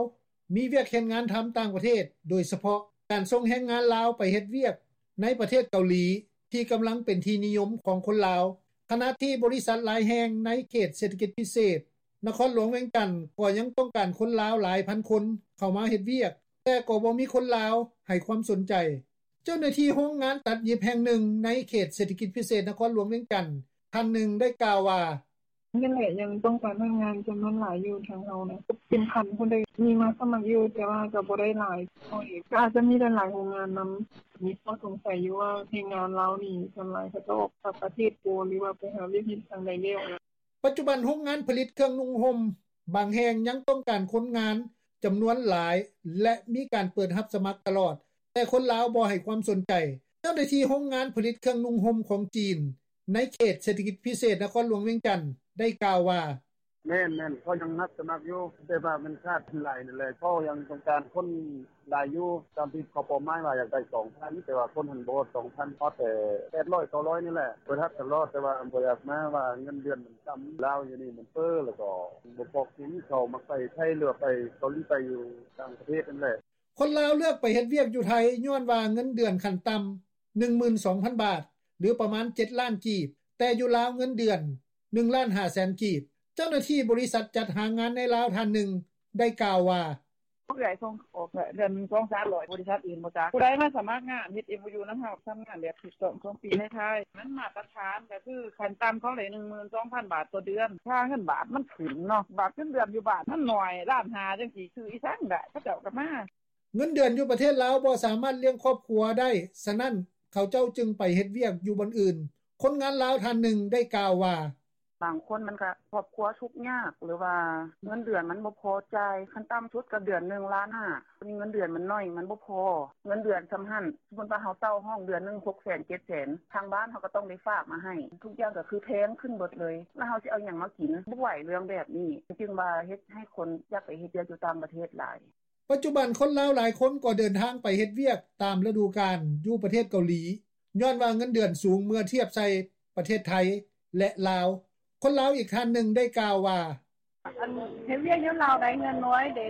ມີວຽກເຮັດງານທຳຕ່າງປະເທດ, ໂດຍສະເພາະການສົ່ງແຮງງານລາວໄປເຮັດວຽກໃນປະເທດເກົາຫຼີ ທີ່ກຳລັງເປັນທີ່ນິຍົມຂອງຄົນລາວ. ຂະນະທີ່ບໍລິສັດຫຼາຍແຫ່ງໃນເຂດເສດຖະກິດພິເສດນະຄອນຫຼວງວຽງຈັນ ກໍຍັງຕ້ອງການຄົນລາວຫຼາຍພັນຄົນເຂົ້າມາເຮັດວຽກ, ແຕ່ກໍບໍ່ມີຄົນລາວໃຫ້ຄວາມສົນໃຈ. ເຈົ້າໜ້າທີ່ໂຮງງານຕັດຫຍິບແຫ່ງໜຶ່ງໃນເຂດເສດຖະກິດພິເສດນະຄອນຫຼວງວຽງຈັນ ທ່ານໜຶ່ງໄດ້ກ່າວວ່າ: ນັ້ນແຫຼະ ຍັງຕ້ອງການພະນັກງານຈຳນວນຫຼາຍຢູ່ ທາງເຮົານະ ເປັນພັນພຸ້ນເດ້ ມີມາສະໝັກຢູ່ ແຕ່ວ່າກໍບໍ່ໄດ້ຫຼາຍເທົ່າເອງ ກໍອາດຈະມີຫຼາຍໆໂຮງງານນຳ. ມີຂໍ້ສົງໄສຢູ່ວ່າແຮງງານລາວນີ້ ສ່ວນຫຼາຍເຂົາເຈົ້າອອກຕ່າງປະເທດບໍ່ ຫຼືວ່າໄປຫາວຽກເຮັດທາງໃດແລ້ວນະ. ປັດຈຸບັນໂຮງງານຜະລິດເຄື່ອງນຸ່ງຫົ່ມບາງແຫ່ງຍັງຕ້ອງການຄົນງານຈຳນວນຫຼາຍ ແລະ ມີການເປີດຮັບສະໝັກຕະຫຼອດ, ແຕ່ຄົນລາວບໍ່ໃຫ້ຄວາມສົນໃຈ. ເຈົ້າໜ້າທີ່ໂຮງງານຜະລິດເຄື່ອງນຸ່ງຫົ່ມຂອງຈີນ ໃນເຂດເສດຖະກິດພິເສດນະຄອນຫຼວງວຽງຈັນ ໄດ້ກ່າວວ່າ: ແມ່ນໆ ເຂົາຍັງຮັບສະໝັກຢູ່ ແຕ່ວ່າມັນຂາດຫຼາຍນັ້ນແຫຼະ ເຂົາຍັງຕ້ອງການຄົນຫຼາຍຢູ່ ຕາມທີ່ເຂົາເປົ້າໝາຍວ່າຢາກໄດ້ສອງພັນ ແຕ່ວ່າຄົນຫັ້ນບໍ່ຮອດສອງພັນ ຮອດແຕ່ແປດຮ້ອຍ ເກົ້າຮ້ອຍນີ້ແຫຼະ. ເປີດຮັບຕະຫຼອດ ແຕ່ວ່າບໍ່ຢາກມາ ວ່າເງິນເດືອນມັນຕ່ຳ ລາວຢູ່ນີ້ມັນເຟີ້ ແລ້ວກໍບໍ່ພໍກິນ ເຂົາມັກໄປໄທ ຫຼືວ່າໄປເກົາຫຼີ ໄປຢູ່ຕ່າງປະເທດນັ້ນແຫຼະ. ຄົນລາວເລືອກໄປເຮັດວຽກຢູ່ໄທ ຍ້ອນວ່າເງິນເດືອນຂັ້ນຕ່ຳ ໜຶ່ງໝື່ນສອງພັນບາດ ຫຼືປະມານເຈັດລ້ານກີບ, ແຕ່ຢູ່ລາວເງິນເດືອນໜຶ່ງລ້ານຫ້າແສນກີບ. ເຈົ້າໜ້າທີ່ບໍລິສັດຈັດຫາງານໃນລາວທ່ານໜຶ່ງໄດ້ກ່າວວ່າ: ເອື້ອຍສົ່ງອອກເດືອນໜຶ່ງສອງສາມຮ້ອຍ ບໍລິສັດອື່ນບໍ່ຈັກ. ຜູ້ໃດມາສະໝັກງານ ເຮັດເອັມໂອຢູນຳເຮົາ ທຳງານແບບຖືກຕ້ອງສອງປີໃນໄທ ມັນມາດຕະຖານ ກໍຄືຂັ້ນຕ່ຳເຂົາໄດ້ໜຶ່ງໝື່ນສອງພັນບາດຕໍ່ເດືອນ. ຄ່າເງິນບາດມັນຂຶ້ນເນາະ ບາດເງິນເດືອນຢູ່ບ້ານມັນໜ້ອຍ ລ້ານຫ້າຈັ່ງຊີ້ ຊື້ອີ່ສັງໄດ້ ເຂົາເຈົ້າກໍມາ. ເງິນເດືອນຢູ່ປະເທດລາວບໍ່ສາມາດລ້ຽງຄອບຄົວໄດ້, ສະນັ້ນເຂົາເຈົ້າຈຶ່ງໄປເຮັດວຽກຢູ່ບ່ອນອື່ນ. ຄົນງານລາວທ່ານໜຶ່ງໄດ້ກ່າວວ່າ: ບາງຄົນມັນກະຄອບຄົວທຸກຍາກ ຫຼືວ່າເງິນເດືອນມັນບໍ່ພໍຈ່າຍ, ຂັ້ນຕ່ຳສຸດກໍເດືອນໜຶ່ງລ້ານຫ້າ ເງິນເດືອນມັນໜ້ອຍ ມັນບໍ່ພໍ ເງິນເດືອນສ່ຳຫັ້ນ. ສົມມຸດວ່າເຮົາເຊົ່າຫ້ອງເດືອນໜຶ່ງຫົກແສນ ເຈັດແສນ ທາງບ້ານເຮົາກໍຕ້ອງໄດ້ຝາກມາໃຫ້ ທຸກຢ່າງກໍຄືແພງຂຶ້ນເບິດເລີຍ ແລ້ວເຮົາຊິເອົາຫຍັງມາກິນ? ບໍ່ໄຫວເລື່ອງແບບນີ້ ຈຶ່ງວ່າເຮັດໃຫ້ຄົນຢາກໄປເຮັດວຽກຢູ່ຕ່າງປະເທດຫຼາຍ. ປັດຈຸບັນຄົນລາວຫຼາຍຄົນກໍເດີນທາງໄປເຮັດວຽກຕາມລະດູການຢູ່ປະເທດເກົາຫຼີ ຍ້ອນວ່າເງິນເດືອນສູງເມື່ອທຽບໃສ່ປະເທດໄທ ແລະ ລາວ. ຄົນລາວອີກທ່ານໜຶ່ງໄດ້ກ່າວວ່າ: ອັນເຮັດວຽກຢູ່ລາວໄດ້ເງິນໜ້ອຍເດ້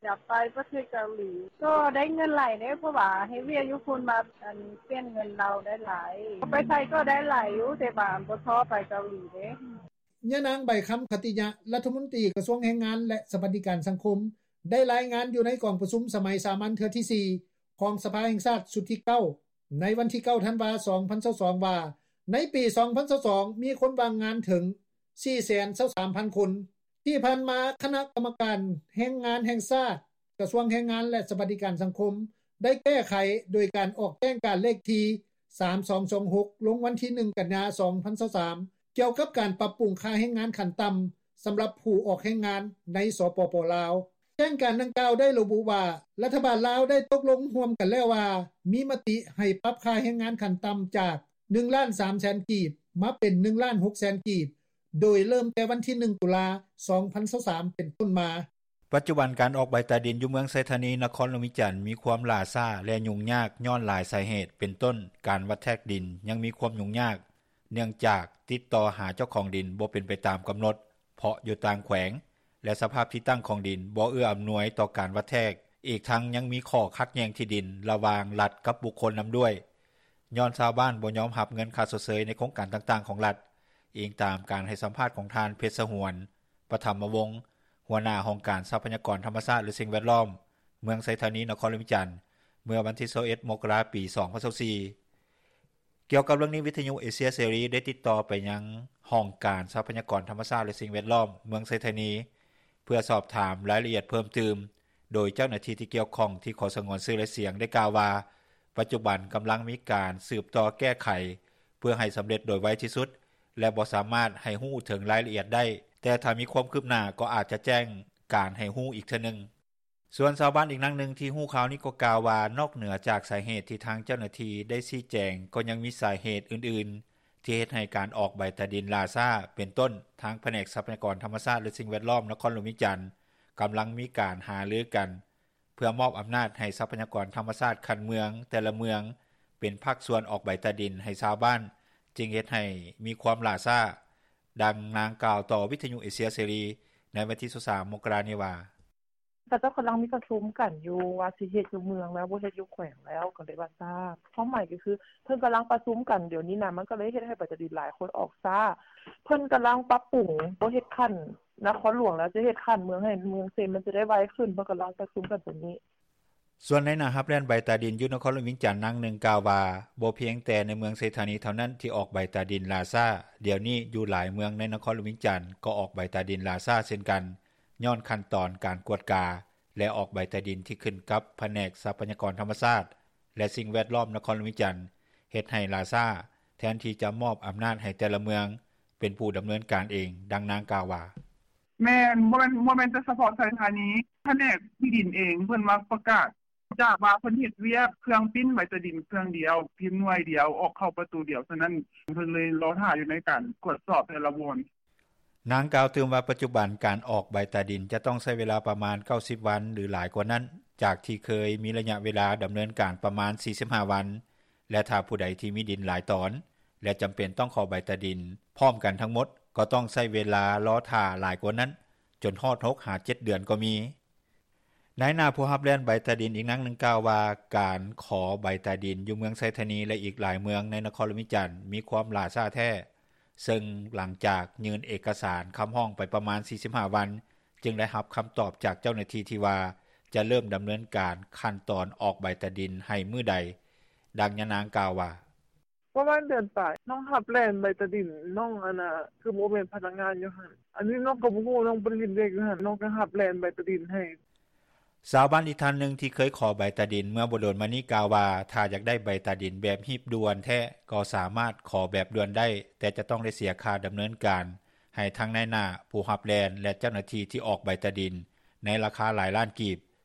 ຢາກໄປປະເທດເກົາຫຼີ ກໍໄດ້ເງິນຫຼາຍເດ້ ເພາະວ່າເຮັດວຽກຢູ່ພຸ້ນ ບາດອັນປ່ຽນເງິນລາວໄດ້ຫຼາຍ ໄປໄທກໍໄດ້ຫຼາຍຢູ່ ແຕ່ວ່າບໍ່ທໍ່ໄປເກົາຫຼີເດ້. ຍານາງ ໃບຄຳ ຂັດຕິຍະ ລັດຖະມົນຕີກະຊວງແຮງງານ ແລະ ສະຫວັດດີການສັງຄົມ ໄດ້ລາຍງານຢູ່ໃນກອງປະຊຸມສະໄໝສາມັນເທື່ອທີສີ່ ຂອງສະພາແຫ່ງຊາດຊຸດທີ 9 ໃນວັນທີ 9 ທັນວາ 2022 ວ່າ ໃນປີ 2022 ມີຄົນວ່າງງານເຖິງ 423,000 ຄົນ. ທີ່ຜ່ານມາ ຄະນະກຳມະການແຮງງານແຫ່ງຊາດ ກະຊວງແຮງງານ ແລະ ສະຫວັດດີການສັງຄົມ ໄດ້ແກ້ໄຂໂດຍການອອກແຈ້ງການເລກທີ 3226 ລົງວັນທີ 1 ກັນຍາ 2023 ກ່ຽວກັບການປັບປຸງຄ່າແຮງງານຂັ້ນຕ່ຳ ສຳລັບຜູ້ອອກແຮງງານໃນ ສປປ ລາວ. ແຈ້ງການດັ່ງກ່າວໄດ້ລະບຸວ່າ ລັດຖະບານລາວໄດ້ຕົກລົງຮ່ວມກັນແລ້ວວ່າ ມີມະຕິໃຫ້ປັບຄ່າແຮງງານຂັ້ນຕ່ຳຈາກ 1,300,000 ກີບ ມາເປັນ 1,600,000 ກີບ ໂດຍເລີ່ມແຕ່ວັນທີ 1 ຕຸລາ 2023 ເປັນຕົ້ນມາ. ປັດຈຸບັນການອອກໃບຕາດິນຢູ່ເມືອງໄຊທານີ ນະຄອນຫຼວງວຽງຈັນ ມີຄວາມຫຼ້າຊ້າ ແລະ ຫຍຸ້ງຍາກຍ້ອນຫຼາຍສາເຫດ ເປັນຕົ້ນ ການວັດແທກດິນຍັງມີຄວາມຫຍຸ້ງຍາກ ເນື່ອງຈາກຕິດຕໍ່ຫາເຈົ້າຂອງດິນບໍ່ເປັນໄປຕາມກຳນົດ ເພາະຢູ່ຕ່າງແຂວງ ແລະ ສະພາບທີ່ຕັ້ງຂອງດິນບໍ່ເອື້ອອຳນວຍຕໍ່ການວັດແທກ ອີກທັງຍັງມີຂໍ້ຂັດແຍ່ງທີ່ດິນລະຫວ່າງລັດກັບບຸກຄົນນຳດ້ວຍ ຍ້ອນຊາວບ້ານບໍ່ຍອມຮັບເງິນຄ່າຊົດເຊີຍໃນໂຄງການຕ່າງໆຂອງລັດ, ອີງຕາມການໃຫ້ສຳພາດຂອງທ່ານ ເພັດສະຫວນ ປະຖຳມະວົງ ຫົວໜ້າຫ້ອງການຊັບພະຍາກອນທຳມະຊາດ ແລະ ສິ່ງແວດລ້ອມ ເມືອງໄຊທານີ ນະຄອນຫຼວງວຽງຈັນ ເມື່ອວັນທີ 21 ມົກກະລາ 2024. ກ່ຽວກັບເລື່ອງນີ້ ວິທະຍຸເອເຊຍເສລີໄດ້ຕິດຕໍ່ໄປຍັງຫ້ອງການຊັບພະຍາກອນທຳມະຊາດ ແລະ ສິ່ງແວດລ້ອມ ເມືອງໄຊທານີ ເພື່ອສອບຖາມລາຍລະອຽດເພີ່ມຕື່ມ, ໂດຍເຈົ້າໜ້າທີ່ທີ່ກ່ຽວຂ້ອງທີ່ຂໍສະຫງວນຊື່ ແລະ ສຽງ ໄດ້ກ່າວວ່າ ປັດຈຸບັນກຳລັງມີການສືບຕໍ່ແກ້ໄຂ ເພື່ອໃຫ້ສຳເລັດໂດຍໄວທີ່ສຸດ ແລະ ບໍ່ສາມາດໃຫ້ຮູ້ເຖິງລາຍລະອຽດໄດ້, ແຕ່ຖ້າມີຄວາມຄືບໜ້າກໍອາດຈະແຈ້ງການໃຫ້ຮູ້ອີກເທື່ອໜຶ່ງ. ສ່ວນຊາວບ້ານອີກນາງໜຶ່ງທີ່ຮູ້ຂ່າວນີ້ກໍກ່າວວ່າ ນອກເໜືອຈາກສາເຫດທີ່ທາງເຈົ້າໜ້າທີ່ໄດ້ຊີ້ແຈງ ກໍຍັງມີສາເຫດອື່ນໆ ທີ່ເຮັດໃຫ້ການອອກໃບຕາດິນຫຼ້າຊ້າ ເປັນຕົ້ນ ທາງພະແນກຊັບພະຍາກອນທຳມະຊາດ ແລະ ສິ່ງແວດລ້ອມ ນະຄອນຫຼວງວຽງຈັນ ກຳລັງມີການຫາລືກັນ ເພື່ອມອບອຳນາດໃຫ້ຊັບພະຍາກອນທຳມະຊາດຂັ້ນເມືອງແຕ່ລະເມືອງ ເປັນພາກສ່ວນອອກໃບຕາດິນໃຫ້ຊາວບ້ານ ຈຶ່ງເຮັດໃຫ້ມີຄວາມຫຼ້າຊ້າ. ດັ່ງນາງກ່າວຕໍ່ວິທະຍຸເອເຊຍເສລີໃນວັນທີ 23 ມົກກະລານີ້ວ່າ: ເຂົາເຈົ້າກຳລັງມີປະຊຸມກັນຢູ່ວ່າຊິເຮັດຢູ່ເມືອງແລ້ວ ບໍ່ເຮັດຢູ່ແຂວງແລ້ວ ກໍເລີຍວ່າຊ້າ. ຄວາມໝາຍກໍຄືເພິ່ນກຳລັງປະຊຸມກັນດຽວນີ້ນະ ມັນກໍເລີຍເຮັດໃຫ້ໃບຕາດິນຫຼາຍຄົນອອກຊ້າ. ເພິ່ນກຳລັງປັບປຸງ ບໍ່ເຮັດຂັ້ນນະຄອນຫຼວງແລ້ວ ຈະເຮັດຂັ້ນເມືອງໃຫ້ເມືອງເຊັນ ມັນຈະໄດ້ໄວຂຶ້ນ. ເພິ່ນກຳລັງປະຊຸມກັນຕົວນີ້. ສ່ວນນາຍໜ້າຮັບແລ່ນໃບຕາດິນຢູ່ນະຄອນຫຼວງວຽງຈັນນາງໜຶ່ງກ່າວວ່າ ບໍ່ພຽງແຕ່ໃນເມືອງໄຊທານີເທົ່ານັ້ນທີ່ອອກໃບຕາດິນຫຼ້າຊ້າ, ດຽວນີ້ຢູ່ຫຼາຍເມືອງໃນນະຄອນຫຼວງວຽງຈັນກໍອອກໃບຕາດິນຫຼ້າຊ້າເຊັ່ນກັນ ຍ້ອນຂັ້ນຕອນການກວດກາ ແລະ ອອກໃບຕາດິນທີ່ຂຶ້ນກັບພະແນກຊັບພະຍາກອນທຳມະຊາດ ແລະ ສິ່ງແວດລ້ອມນະຄອນຫຼວງວຽງຈັນ ເຮັດໃຫ້ຫຼ້າຊ້າ ແທນທີ່ຈະມອບອຳນາດໃຫ້ແຕ່ລະເມືອງເປັນຜູ້ດຳເນີນການເອງ. ດັ່ງນາງກ່າວວ່າ: ແມ່ນ ບໍ່ແມ່ນ ບໍ່ແມ່ນແຕ່ສະເພາະໄຊທານີ ພະແນກທີ່ດິນເອງເພິ່ນມາປະກາດ ຈາກວ່າເພິ່ນເຮັດວຽກເຄື່ອງປິ່ນໃບຕາດິນເຄື່ອງດຽວ ພິມໜ່ວຍດຽວ ອອກເຂົ້າປະຕູດຽວ ສະນັ້ນເພິ່ນເລີຍລໍຖ້າຢູ່ໃນການກວດສອບແຕ່ລະບ່ອນ. ນາງກ່າວຕື່ມວ່າ ປັດຈຸບັນການອອກໃບຕາດິນຈະຕ້ອງໃຊ້ເວລາປະມານ 90 ວັນ ຫຼື ຫຼາຍກວ່ານັ້ນ ຈາກທີ່ເຄີຍມີໄລຍະເວລາດຳເນີນການປະມານ 45 ວັນ ແລະ ຖ້າຜູ້ໃດທີ່ມີດິນຫຼາຍຕອນ ແລະ ຈຳເປັນຕ້ອງຂໍໃບຕາດິນພ້ອມກັນທັງໝົດ ກໍຕ້ອງໃຊ້ເວລາລໍຖ້າຫຼາຍກວ່ານັ້ນ ຈົນຮອດ 6 ຫາ 7 ເດືອນກໍມີ. ນາຍໜ້າຜູ້ຮັບແລ່ນໃບຕາດິນອີກນາງໜຶ່ງກ່າວວ່າ ການຂໍໃບຕາດິນຢູ່ເມືອງໄຊທານີ ແລະ ອີກຫຼາຍເມືອງໃນນະຄອນຫຼວງວຽງຈັນ ມີຄວາມຫຼ້າຊ້າແທ້, ເຊິ່ງຫຼັງຈາກຍື່ນເອກະສານຄຳຮ້ອງໄປປະມານ 45 ວັນ ຈຶ່ງໄດ້ຮັບຄຳຕອບຈາກເຈົ້າໜ້າທີ່ທີ່ວ່າ ຈະເລີ່ມດຳເນີນການຂັ້ນຕອນອອກໃບຕາດິນໃຫ້ມື້ໃດ. ດັ່ງຍານາງກ່າວວ່າ: ປະມານເດືອນປາຍ ນ້ອງຮັບແລ່ນໃບຕາດິນ ນ້ອງ ອັນນ່າ ຄືບໍ່ແມ່ນພະນັກງານຢູ່ຫັ້ນ ອັນນີ້ນ້ອງກໍບໍ່ຮູ້ ນ້ອງບໍ່ໄດ້ເຮັດວຽກຢູ່ຫັ້ນ ນ້ອງກໍຮັບແລ່ນໃບຕາດິນໃຫ້. ຊາວບ້ານອີກທ່ານໜຶ່ງທີ່ເຄີຍຂໍໃບຕາດິນເມື່ອບໍ່ດົນມານີ້ກ່າວວ່າ ຖ້າຢາກໄດ້ໃບຕາດິນແບບຮີບດ່ວນແທ້ ກໍສາມາດຂໍແບບດ່ວນໄດ້ ແຕ່ຈະຕ້ອງໄດ້ເສຍຄ່າດຳເນີນການໃຫ້ທັງນາຍໜ້າຜູ້ຮັບແລ່ນ ແລະ ເຈົ້າໜ້າທີ່ທີ່ອອກໃບຕາດິນ ໃນລາຄາຫຼາຍລ້ານກີບ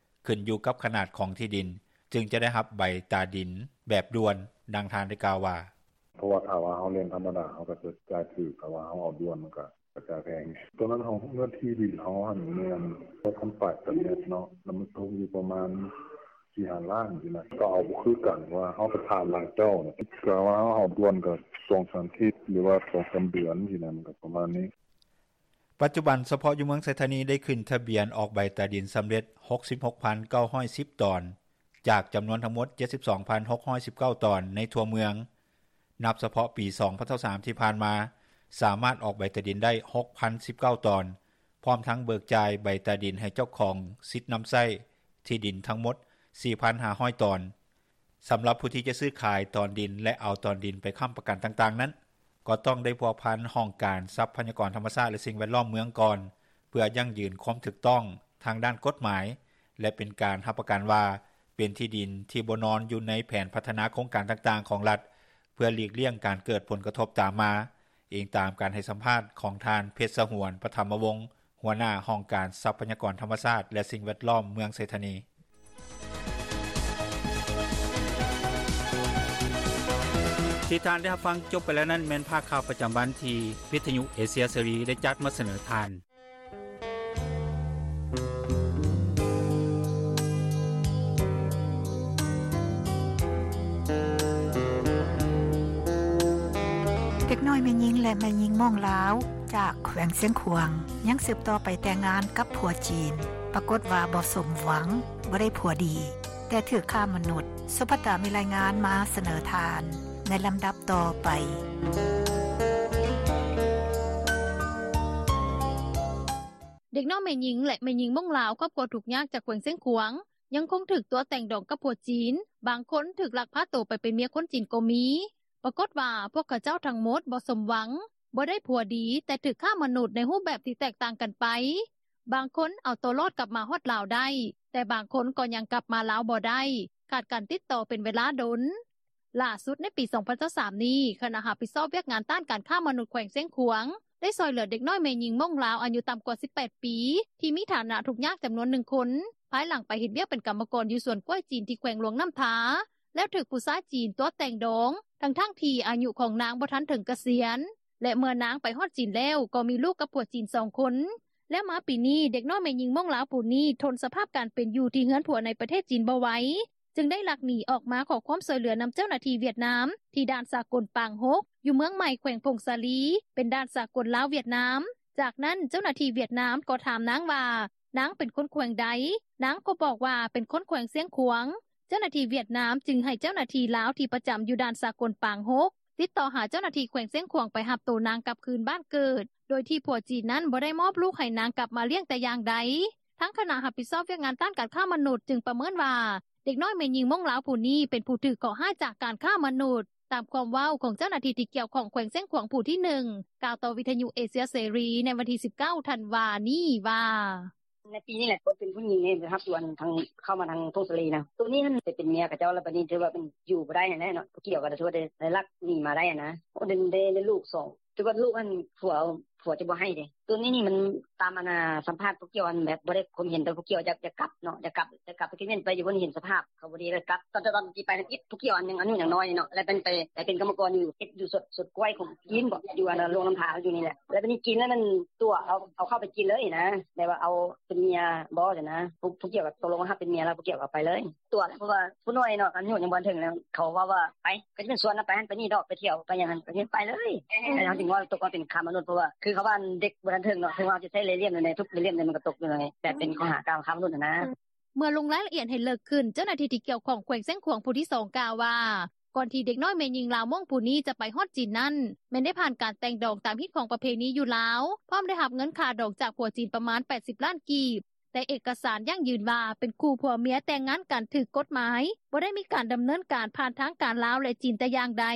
ຂຶ້ນຢູ່ກັບຂະໜາດຂອງທີ່ດິນ ຈຶ່ງຈະໄດ້ຮັບໃບຕາດິນແບບດ່ວນ. ດັ່ງທ່ານໄດ້ກ່າວວ່າ: ເພາະວ່າຖ້າວ່າເຮົາແລ່ນທຳມະດາ ເຮົາກໍຈະຈ່າຍຖືກ ຖ້າວ່າເຮົາເອົາດ່ວນ ມັນກໍ ກະຈາຍແພງ. ຕອນນັ້ນເຮົາ ເນື້ອທີ່ດິນເຮົາຫັ້ນແມ່ນ ແປດພັນປາຍຕາແມັດເນາະ ແລ້ວມັນຕົກຢູ່ປະມານ ສີ່ຫ້າລ້ານຊີ້ນະ ກໍເອົາບໍ່ຄືກັນ ວ່າເຮົາໄປຖາມຫຼາຍເຈົ້ານະ ກະວ່າເຮົາເອົາດ່ວນກໍສອງສາມທິດ ຫຼືວ່າສອງສາມເດືອນຊີ້ນະ ມັນກໍປະມານນີ້. ປັດຈຸບັນ ສະເພາະຢູ່ເມືອງໄຊທານີ ໄດ້ຂຶ້ນທະບຽນອອກໃບຕາດິນສຳເລັດ ຫົກສິບຫົກພັນເກົ້າຮ້ອຍສິບຕອນ ຈາກຈຳນວນທັງໝົດ ເຈັດສິບສອງພັນຫົກຮ້ອຍສິບເກົ້າຕອນໃນທົ່ວເມືອງ. ນັບສະເພາະປີສອງພັນຊາວສາມທີ່ຜ່ານມາ ສາມາດອອກໃບຕາດິນໄດ້ ຫົກພັນສິບເກົ້າຕອນ ພ້ອມທັງເບີກຈ່າຍໃບຕາດິນໃຫ້ເຈົ້າຂອງສິດນຳໃຊ້ທີ່ດິນທັງໝົດ ສີ່ພັນຫ້າຮ້ອຍຕອນ. ສຳລັບຜູ້ທີ່ຈະຊື້-ຂາຍຕອນດິນ ແລະເອົາຕອນດິນໄປຄໍ້າປະກັນຕ່າງໆນັ້ນ ກໍຕ້ອງໄດ້ພົວພັນຫ້ອງການຊັບພະຍາກອນທຳມະຊາດ ແລະສິ່ງແວດລ້ອມເມືອງກ່ອນ ເພື່ອຢັ້ງຢືນຄວາມຖືກຕ້ອງທາງດ້ານກົດໝາຍ ແລະເປັນການຮັບປະກັນວ່າ ເປັນທີ່ດິນທີ່ບໍ່ນອນຢູ່ໃນແຜນພັດທະນາໂຄງການຕ່າງໆຂອງລັດ ເພື່ອຫຼີກລ້ຽງການເກີດຜົນກະທົບຕາມມາ, ອີງຕາມການໃຫ້ສຳພາດຂອງທ່ານ ເພັດສະຫວນ ປະຖຳມະວົງ ຫົວໜ້າຫ້ອງການຊັບພະຍາກອນທຳມະຊາດ ແລະສິ່ງແວດລ້ອມເມືອງໄຊທານີ. ທີ່ທ່ານໄດ້ຮັບຟັງຈົບໄປແລ້ວນັ້ນ ແມ່ນພາກຂ່າວປະຈຳວັນທີ່ວິທຍຸເອເຊຍເສລີໄດ້ຈັດມາສະເໜີທ່ານ. ເດັກນ້ອຍແມ່ຍິງ ແລະແມ່ຍິງມົ້ງລາວ ຈາກແຂວງຊຽງຂວາງ ຍັງສືບຕໍ່ໄປແຕ່ງງານກັບຜົວຈີນ ປາກົດວ່າບໍ່ສົມຫວັງ, ບໍ່ໄດ້ຜົວດີ ແຕ່ຖືກຄ້າມະນຸດ. ສຸພັດຕາມີລາຍງານມາສະເໜີທ່ານໃນລຳດັບຕໍ່ໄປ. ເດັກນ້ອຍແມ່ຍິງ ແລະແມ່ຍິງມົ້ງລາວ ຄອບຄົວທຸກຍາກຈາກແຂວງຊຽງຂວາງ ຍັງຄົງຖືກຕົວະແຕ່ງດອງກັບຜົວຈີນ, ບາງຄົນຖືກລັກພາໂຕໄປເປັນເມຍຄົນຈີນກໍມີ. ປາກົດວ່າພວກເຂົາເຈົ້າທັງໝົດບໍ່ສົມຫວັງ, ບໍ່ໄດ້ຜົວດີ, ແຕ່ຖືກຄ້າມະນຸດໃນຮູບແບບທີ່ແຕກຕ່າງກັນໄປ. ບາງຄົນເອົາຕົວລອດກັບມາຮອດລາວໄດ້, ແຕ່ບາງຄົນກໍຍັງກັບມາລາວບໍ່ໄດ້, ຂາດການຕິດຕໍ່ເປັນເວລາດົນ. ຫຼ້າສຸດໃນປີສອງພັນຊາວສາມນີ້, ຄະນະຮັບຜິດຊອບວຽກງານຕ້ານການຄ້າມະນຸດແຂວງຊຽງຂວາງ ໄດ້ຊ່ອຍເຫຼືອເດັກນ້ອຍແມ່ຍິງມົ້ງລາວອາຍຸຕ່ຳກວ່າສິບແປດປີ ທີ່ມີຖານະທຸກຍາກຈຳນວນໜຶ່ງຄົນ ພາຍຫຼັງໄປເຮັດວຽກເປັນກຳມະກອນຢູ່ສວນກ້ວຍຈີນທີ່ແຂວງຫຼວງນ້ຳທາ ແລ້ວຖືກຜູ້ຊາຍຈີນຕົວະແຕ່ງດອງ ທັງໆທີ່ອາຍຸຂອງນາງບໍ່ທັນເຖິງກະສຽນ ແລະເມື່ອນາງໄປຮອດຈີນແລ້ວ ກໍມີລູກກັບຜົວຈີນສອງຄົນ. ແລ້ວມາປີນີ້ ເດັກນ້ອຍແມ່ຍິງມົ້ງລາວຜູ້ນີ້ ທົນສະພາບການເປັນຢູ່ທີ່ເຮືອນຜົວໃນປະເທດຈີນບໍ່ໄຫວ ຈຶ່ງໄດ້ລັກໜີອອກມາຂໍຄວາມຊ່ວຍເຫຼືອນຳເຈົ້າໜ້າທີ່ຫວຽດນາມ ທີ່ດ່ານສາກົນປາງຫົກ ຢູ່ເມືອງໃໝ່ ແຂວງຜົ້ງສາລີ ເປັນດ່ານສາກົນລາວ-ຫວຽດນາມ. ຈາກນັ້ນເຈົ້າໜ້າທີ່ຫວຽດນາມກໍຖາມນາງວ່າ ນາງເປັນຄົນແຂວງໃດ, ນາງກໍບອກວ່າເປັນຄົນແຂວງຊຽງຂວາງ. ເຈົ້າໜ້າທີ່ຫວຽດນາມຈຶ່ງໃຫ້ເຈົ້າໜ້າທີ່ລາວທີ່ປະຈຳຢູ່ດ່ານສາກົນປາງຫົກ ຕິດຕໍ່ຫາເຈົ້າໜ້າທີ່ແຂວງຊຽງຂວາງໄປຮັບໂຕນາງກັບຄືນບ້ານເກີດ ໂດຍທີ່ຜົວຈີນນັ້ນບໍ່ໄດ້ມອບລູກໃຫ້ນາງກັບມາລ້ຽງແຕ່ຢ່າງໃດ. ທາງຄະນະຮັບຜິດຊອບວຽກງານຕ້ານການຄ້າມະນຸດຈຶ່ງປະເມີນວ່າ ເດັກນ້ອຍແມ່ຍິງມົ້ງລາວຜູ້ນີ້ເປັນຜູ້ຖືກເຄາະຮ້າຍຈາກການຄ້າມະນຸດ, ຕາມຄວາມເວົ້າຂອງເຈົ້າໜ້າທີ່ທີ່ກ່ຽວຂ້ອງແຂວງຊຽງຂວາງຜູ້ທີໜຶ່ງ ກ່າວຕໍ່ວິທຍຸເອເຊຍເສລີໃນວັນທີສິບເກົ້າທັນວານີ້ວ່າ: ໃນປີນີ້ແຫຼະ ເປັນຜູ້ຍິງນີ້ໄປຮັບຢູ່ອັນທາງ ເຂົ້າມາທາງຜົ້ງສາລີນະ ໂຕນີ້ຫັ້ນໄປເປັນເມຍເຂົາເຈົ້າ ແລ້ວບາດນີ້ຖືວ່າເປັນຢູ່ບໍ່ໄດ້ຫັ້ນແຫຼະເນາະ ຜູ້ກ່ຽວກໍຖືວ່າໄດ້ລັກໜີມາໄດ້ຫັ້ນນະ. ໂອ້ ໄດ້ ໄດ້ ໄດ້ລູກສອງ ຖືວ່າລູກຫັ້ນຜົວ ຜົວຈະບໍ່ໃຫ້ເດ້. ໂຕນີ້ນີ້ມັນຕາມອັນນ່າ ສຳພາດຜູ້ກ່ຽວຫັ້ນ ແບບບໍ່ໄດ້ຄວາມເຫັນ ແຕ່ຜູ້ກ່ຽວຢາກ ຢາກກັບເນາະ ຢາກກັບ ຢາກກັບ ໄປຄິດແມ່ນໄປຢູ່ ເພິ່ນເຫັນສະພາບເຂົາບໍ່ດີ ແລ້ວກັບ ຕອນ ຕອນທີ່ໄປນັ້ນອີກ ຜູ້ກ່ຽວອັນຍັງອາຍຸຍັງນ້ອຍເນາະ ແລ້ວເປັນໄປ ໄປເປັນກຳມະກອນຢູ່ ເຮັດຢູ່ສວນ ສວນກ້ວຍຂອງຈີນບໍ ຢູ່ອັນນ່າ ຫຼວງນ້ຳທາຢູ່ນີ້ແຫຼະ. ແລ້ວບາດນີ້ຈີນແລ້ວມັນຕົວະເອົາ ເອົາເຂົ້າໄປຈີນເລີຍນະ ແບບວ່າເອົາເປັນເມຍບໍຊັ້ນນະ ຜູ້ ຜູ້ກ່ຽວກໍຕົກລົງຮັບເປັນເມຍແລ້ວ ຜູ້ກ່ຽວກໍເອົາໄປເລີຍ. ຕົວະແຫຼະ ເພາະວ່າຜູ້ນ້ອຍເນາະ ອາຍຸຍັງບໍ່ທັນເຖິງ ແລ້ວເຂົາເວົ້າວ່າໄປ ກໍຈະເປັນສວນນະ ໄປຫັ້ນໄປນີ້ດອກ ໄປທ່ຽວໄປຫຍັງຫັ້ນ ກໍເຮັດໄປເລີຍ. ເຮົາຈຶ່ງວ່າຕົກມາເປັນຄ້າມະນຸດ ເພາະວ່າຄືເຂົາວ່າເດັກບໍ່ທັນເຖິງເນາະ ເຖິງວ່າເຮົາຈະໃຊ້ເລ່ຍໆ ໃນທຸກເລ່ຍໆ ມັນກໍຕົກຢູ່ໃນ ແບບເປັນຂໍ້ຫາກ່າວຄ້າມະນຸດຫັ້ນນະ. ເມື່ອລົງລາຍລະອຽດໃຫ້ເລິກຂຶ້ນ ເຈົ້າໜ້າທີ່ທີ່ກ່ຽວຂ້ອງແຂວງຊຽງຂວາງຜູ້ທີສອງກ່າວວ່າ ກ່ອນທີ່ເດັກນ້ອຍແມ່ຍິງລາວມົ້ງຜູ້ນີ້ຈະໄປຮອດຈີນນັ້ນ ແມ່ນໄດ້ຜ່ານການແຕ່ງດອງຕາມຮີດຄອງປະເພນີຢູ່ລາວ ພ້ອມໄດ້ຮັບເງິນຄ່າດອງຈາກຜົວຈີນປະມານແປດສິບລ້ານກີບ ແຕ່ເອກະສານຢັ້ງຢືນວ່າເປັນຄູ່ຜົວເມຍແຕ່ງງານກັນຖືກກົດໝາຍ ບໍ່ໄດ້ມີການດຳເນີນການຜ່ານທາງການລາວ ແລະ ຈີນແຕ່ຢ່າງໃດ.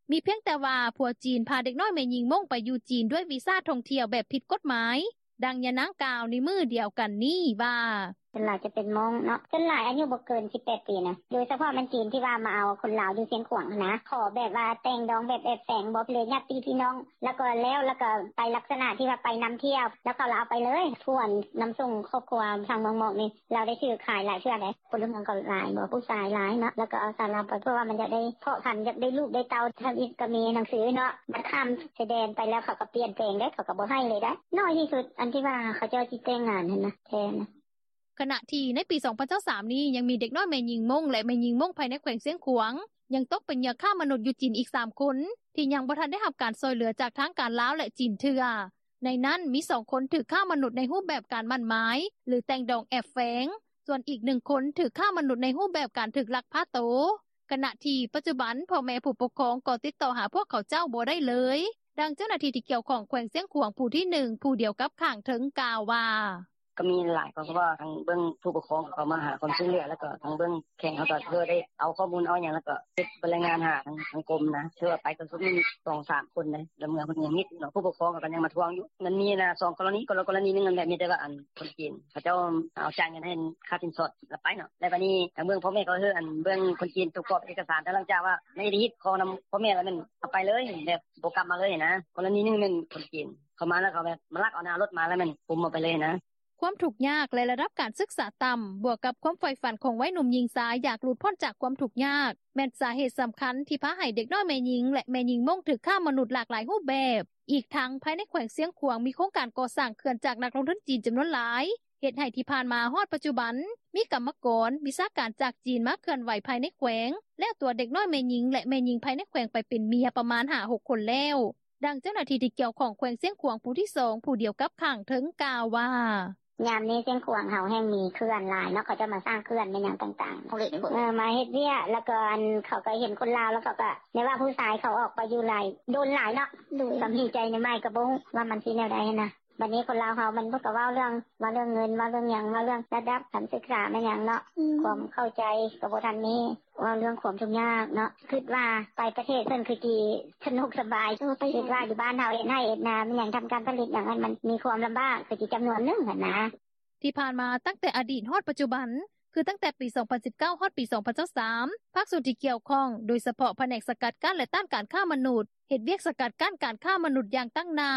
ມີພຽງແຕ່ວ່າຜົວຈີນພາເດັກນ້ອຍແມ່ຍິງມົ້ງໄປຢູ່ຈີນດ້ວຍວີຊາທ່ອງທ່ຽວແບບຜິດກົດໝາຍ. ດັ່ງຍານາງກ່າວໃນມື້ດຽວກັນນີ້ວ່າ: ສ່ວນຫຼາຍຈະເປັນມົ້ງເນາະ ສ່ວນຫຼາຍອາຍຸບໍ່ເກີນສິບແປດປີນະ ໂດຍສະເພາະແມ່ນຈີນທີ່ວ່າມາເອົາຄົນລາວຢູ່ຊຽງຂວາງຫັ້ນນະ ຂໍແບບວ່າແຕ່ງດອງແບບແອບແຝງ ບໍ່ເລີຍຍາດຕິພີ່ນ້ອງ ແລ້ວກໍແລ້ວ ແລ້ວກໍໄປລັກສະນະທີ່ວ່າໄປນຳທ່ຽວ ແລ້ວເຂົາລະເອົາໄປເລີຍ. ຜູ້ນຳສົ່ງຄອບຄົວທາງເມືອງໝອກນີ້ ລາວໄດ້ຖືກຂາຍຫຼາຍເທື່ອໃດ໋ ພົນລະເມືອງກໍຫຼາຍບໍ ຜູ້ຊາຍຫຼາຍເນາະ ແລ້ວກໍເອົາສາວລາວໄປ ເພາະວ່າມັນຢາກໄດ້ເພາະພັນ ຢາກໄດ້ລູກໄດ້ເຕົ້າ ທຳອິດກໍມີໜັງສືເນາະ ບັດຂ້າມຊາຍແດນໄປແລ້ວ ເຂົາກໍປ່ຽນແປງໄດ໋ ເຂົາກໍບໍ່ໃຫ້ເລີຍໄດ໋ ໜ້ອຍທີ່ສຸດ ອັນທີ່ວ່າເຂົາເຈົ້າຊິແຕ່ງງານຫັ້ນນະ ແທ້ນະ. ຂະນະທີ່ໃນປີສອງພັນຊາວສາມນີ້ ຍັງມີເດັກນ້ອຍແມ່ຍິງມົ້ງ ແລະ ແມ່ຍິງມົ້ງພາຍໃນແຂວງຊຽງຂວາງ ຍັງຕົກເປັນເຫຍື່ອຄ້າມະນຸດຢູ່ຈີນອີກສາມຄົນ ທີ່ຍັງບໍ່ທັນໄດ້ຮັບການຊ່ອຍເຫຼືອຈາກທາງການລາວ ແລະ ຈີນເທື່ອ. ໃນນັ້ນມີສອງຄົນຖືກຄ້າມະນຸດໃນຮູບແບບການໝັ້ນໝາຍ ຫຼື ແຕ່ງດອງແອບແຝງ, ສ່ວນອີກໜຶ່ງຄົນຖືກຄ້າມະນຸດໃນຮູບແບບການຖືກລັກພາໂຕ. ຂະນະທີ່ປັດຈຸບັນ ພໍ່ແມ່ຜູ້ປົກຄອງກໍຕິດຕໍ່ຫາພວກເຂົາເຈົ້າບໍ່ໄດ້ເລີຍ. ດັ່ງເຈົ້າໜ້າທີ່ທີ່ກ່ຽວຂ້ອງແຂວງຊຽງຂວາງຜູ້ທີໜຶ່ງ ຜູ້ດຽວກັບຂ້າງເທິງກ່າວວ່າ: ກໍມີຫຼາຍ ເພາະວ່າທາງເບື້ອງຜູ້ປົກຄອງ ເຂົາມາຫາຄວາມຊ່ວຍເຫຼືອ ແລ້ວກໍທາງເບື້ອງແຂວງເຮົາກໍເລີຍໄດ້ເອົາຂໍ້ມູນເອົາຫຍັງ ແລ້ວກໍເຮັດລາຍງານຫາທາງກົມນະ. ຖືວ່າໄປກໍມີສອງສາມຄົນເດ້ ແລ້ວເມືອເພິ່ນຍັງມິດເນາະ ຜູ້ປົກຄອງເຂົາກໍຍັງມາທວງຢູ່. ມັນມີນະ ສອງກໍລະນີ ກໍລະນີໜຶ່ງຫັ້ນແຫຼະ ມີແຕ່ວ່າອັນຄົນຈີນເຂົາເຈົ້າເອົາຈ່າຍເງິນໃຫ້ຄ່າສິນສອດແລ້ວໄປເນາະ. ແລ້ວບາດນີ້ທາງເບື້ອງພໍ່ແມ່ກໍຄືອັນເບື້ອງຄົນຈີນ ປະກອບເອກະສານ ແຕ່ຫຼັງຈາກວ່າໃນອະດີດຂໍນຳພໍ່ແມ່ແລ້ວ ແມ່ນເອົາໄປເລີຍ ແບບບໍ່ກັບມາເລີຍນະ. ກໍລະນີໜຶ່ງແມ່ນຄົນຈີນເຂົາມາ ແລ້ວເຂົາແບບມາລັກເອົາໜ້າລົດມາ ແລ້ວແມ່ນກຸມເອົາໄປເລີຍນະ. ຄວາມທຸກຍາກ ແລະ ລະດັບການສຶກສາຕ່ຳ ບວກກັບຄວາມໃຝ່ຝັນຂອງໄວໜຸ່ມຍິງຊາຍ ຢາກຫຼຸດພົ້ນຈາກຄວາມທຸກຍາກ ແມ່ນສາເຫດສຳຄັນທີ່ພາໃຫ້ເດັກນ້ອຍແມ່ຍິງ ແລະ ແມ່ຍິງມົ້ງຖືກຄ້າມະນຸດຫຼາກຫຼາຍຮູບແບບ. ອີກທັງພາຍໃນແຂວງຊຽງຂວາງ ມີໂຄງການກໍ່ສ້າງເຂື່ອນຈາກນັກລົງທຶນຈີນຈຳນວນຫຼາຍ ເຮັດໃຫ້ທີ່ຜ່ານມາຮອດປັດຈຸບັນ ມີກຳມະກອນ, ວິຊາການຈາກຈີນມາເຄື່ອນໄຫວພາຍໃນແຂວງ ແລ້ວຕົວເດັກນ້ອຍແມ່ຍິງ ແລະ ແມ່ຍິງພາຍໃນແຂວງໄປເປັນເມຍປະມານຫ້າຫົກຄົນແລ້ວ. ດັ່ງເຈົ້າໜ້າທີ່ທີ່ກ່ຽວຂ້ອງແຂວງຊຽງຂວາງຜູ້ທີສອງ ຜູ້ດຽວກັບຂ້າງເທິງກ່າວວ່າ ຍາມນີ້ຊຽງຂວາງເຮົາແຮ່ງມີເຂື່ອນຫຼາຍເນາະ ເຂົາເຈົ້າມາສ້າງເຂື່ອນແມ່ນຫຍັງຕ່າງໆ ເອີ ມາເຮັດວຽກ ແລ້ວກໍອັນເຂົາກໍເຫັນຄົນລາວ ແລ້ວເຂົາກໍ ແບບວ່າຜູ້ຊາຍເຂົາອອກໄປຢູ່ຫຼາຍ ດົນຫຼາຍເນາະ ກໍມີໃຈໃໝ່ ກໍບໍ່ຮູ້ວ່າມັນຊິແນວໃດຫັ້ນນະ. ບັດນີ້ຄົນລາວເຮົາມັນກໍເວົ້າເລື່ອງ ເວົ້າເລື່ອງເງິນ ເວົ້າເລື່ອງຫຍັງ ເວົ້າເລື່ອງລະດັບການສຶກສາແມ່ນຫຍັງເນາະ ຄວາມເຂົ້າໃຈກໍບໍ່ທັນມີ ເວົ້າເລື່ອງຄວາມທຸກຍາກເນາະ. ຄິດວ່າໄປປະເທດເພິ່ນຄືຊິສະໜຸກສະບາຍ ຄິດວ່າຢູ່ບ້ານເຮົາເຮັດໄຮ່ເຮັດນາແມ່ນຫຍັງ ທຳການຜະລິດຫຍັງ ມັນມີຄວາມລຳບາກຄືຊິຈຳນວນໜຶ່ງຫັ້ນນະ. ທີ່ຜ່ານມາຕັ້ງແຕ່ອະດີດຮອດປັດຈຸບັນ ຄືຕັ້ງແຕ່ປີສອງພັນສິບເກົ້າ ຮອດປີສອງພັນຊາວສາມ ພາກສ່ວນທີ່ກ່ຽວຂ້ອງ ໂດຍສະເພາະພະແນກສະກັດກັ້ນ ແລະ ຕ້ານການຄ້າມະນຸດ ເຮັດວຽກສະກັດກັ້ນການຄ້າມະນຸດຢ່າງຕັ້ງໜ້າ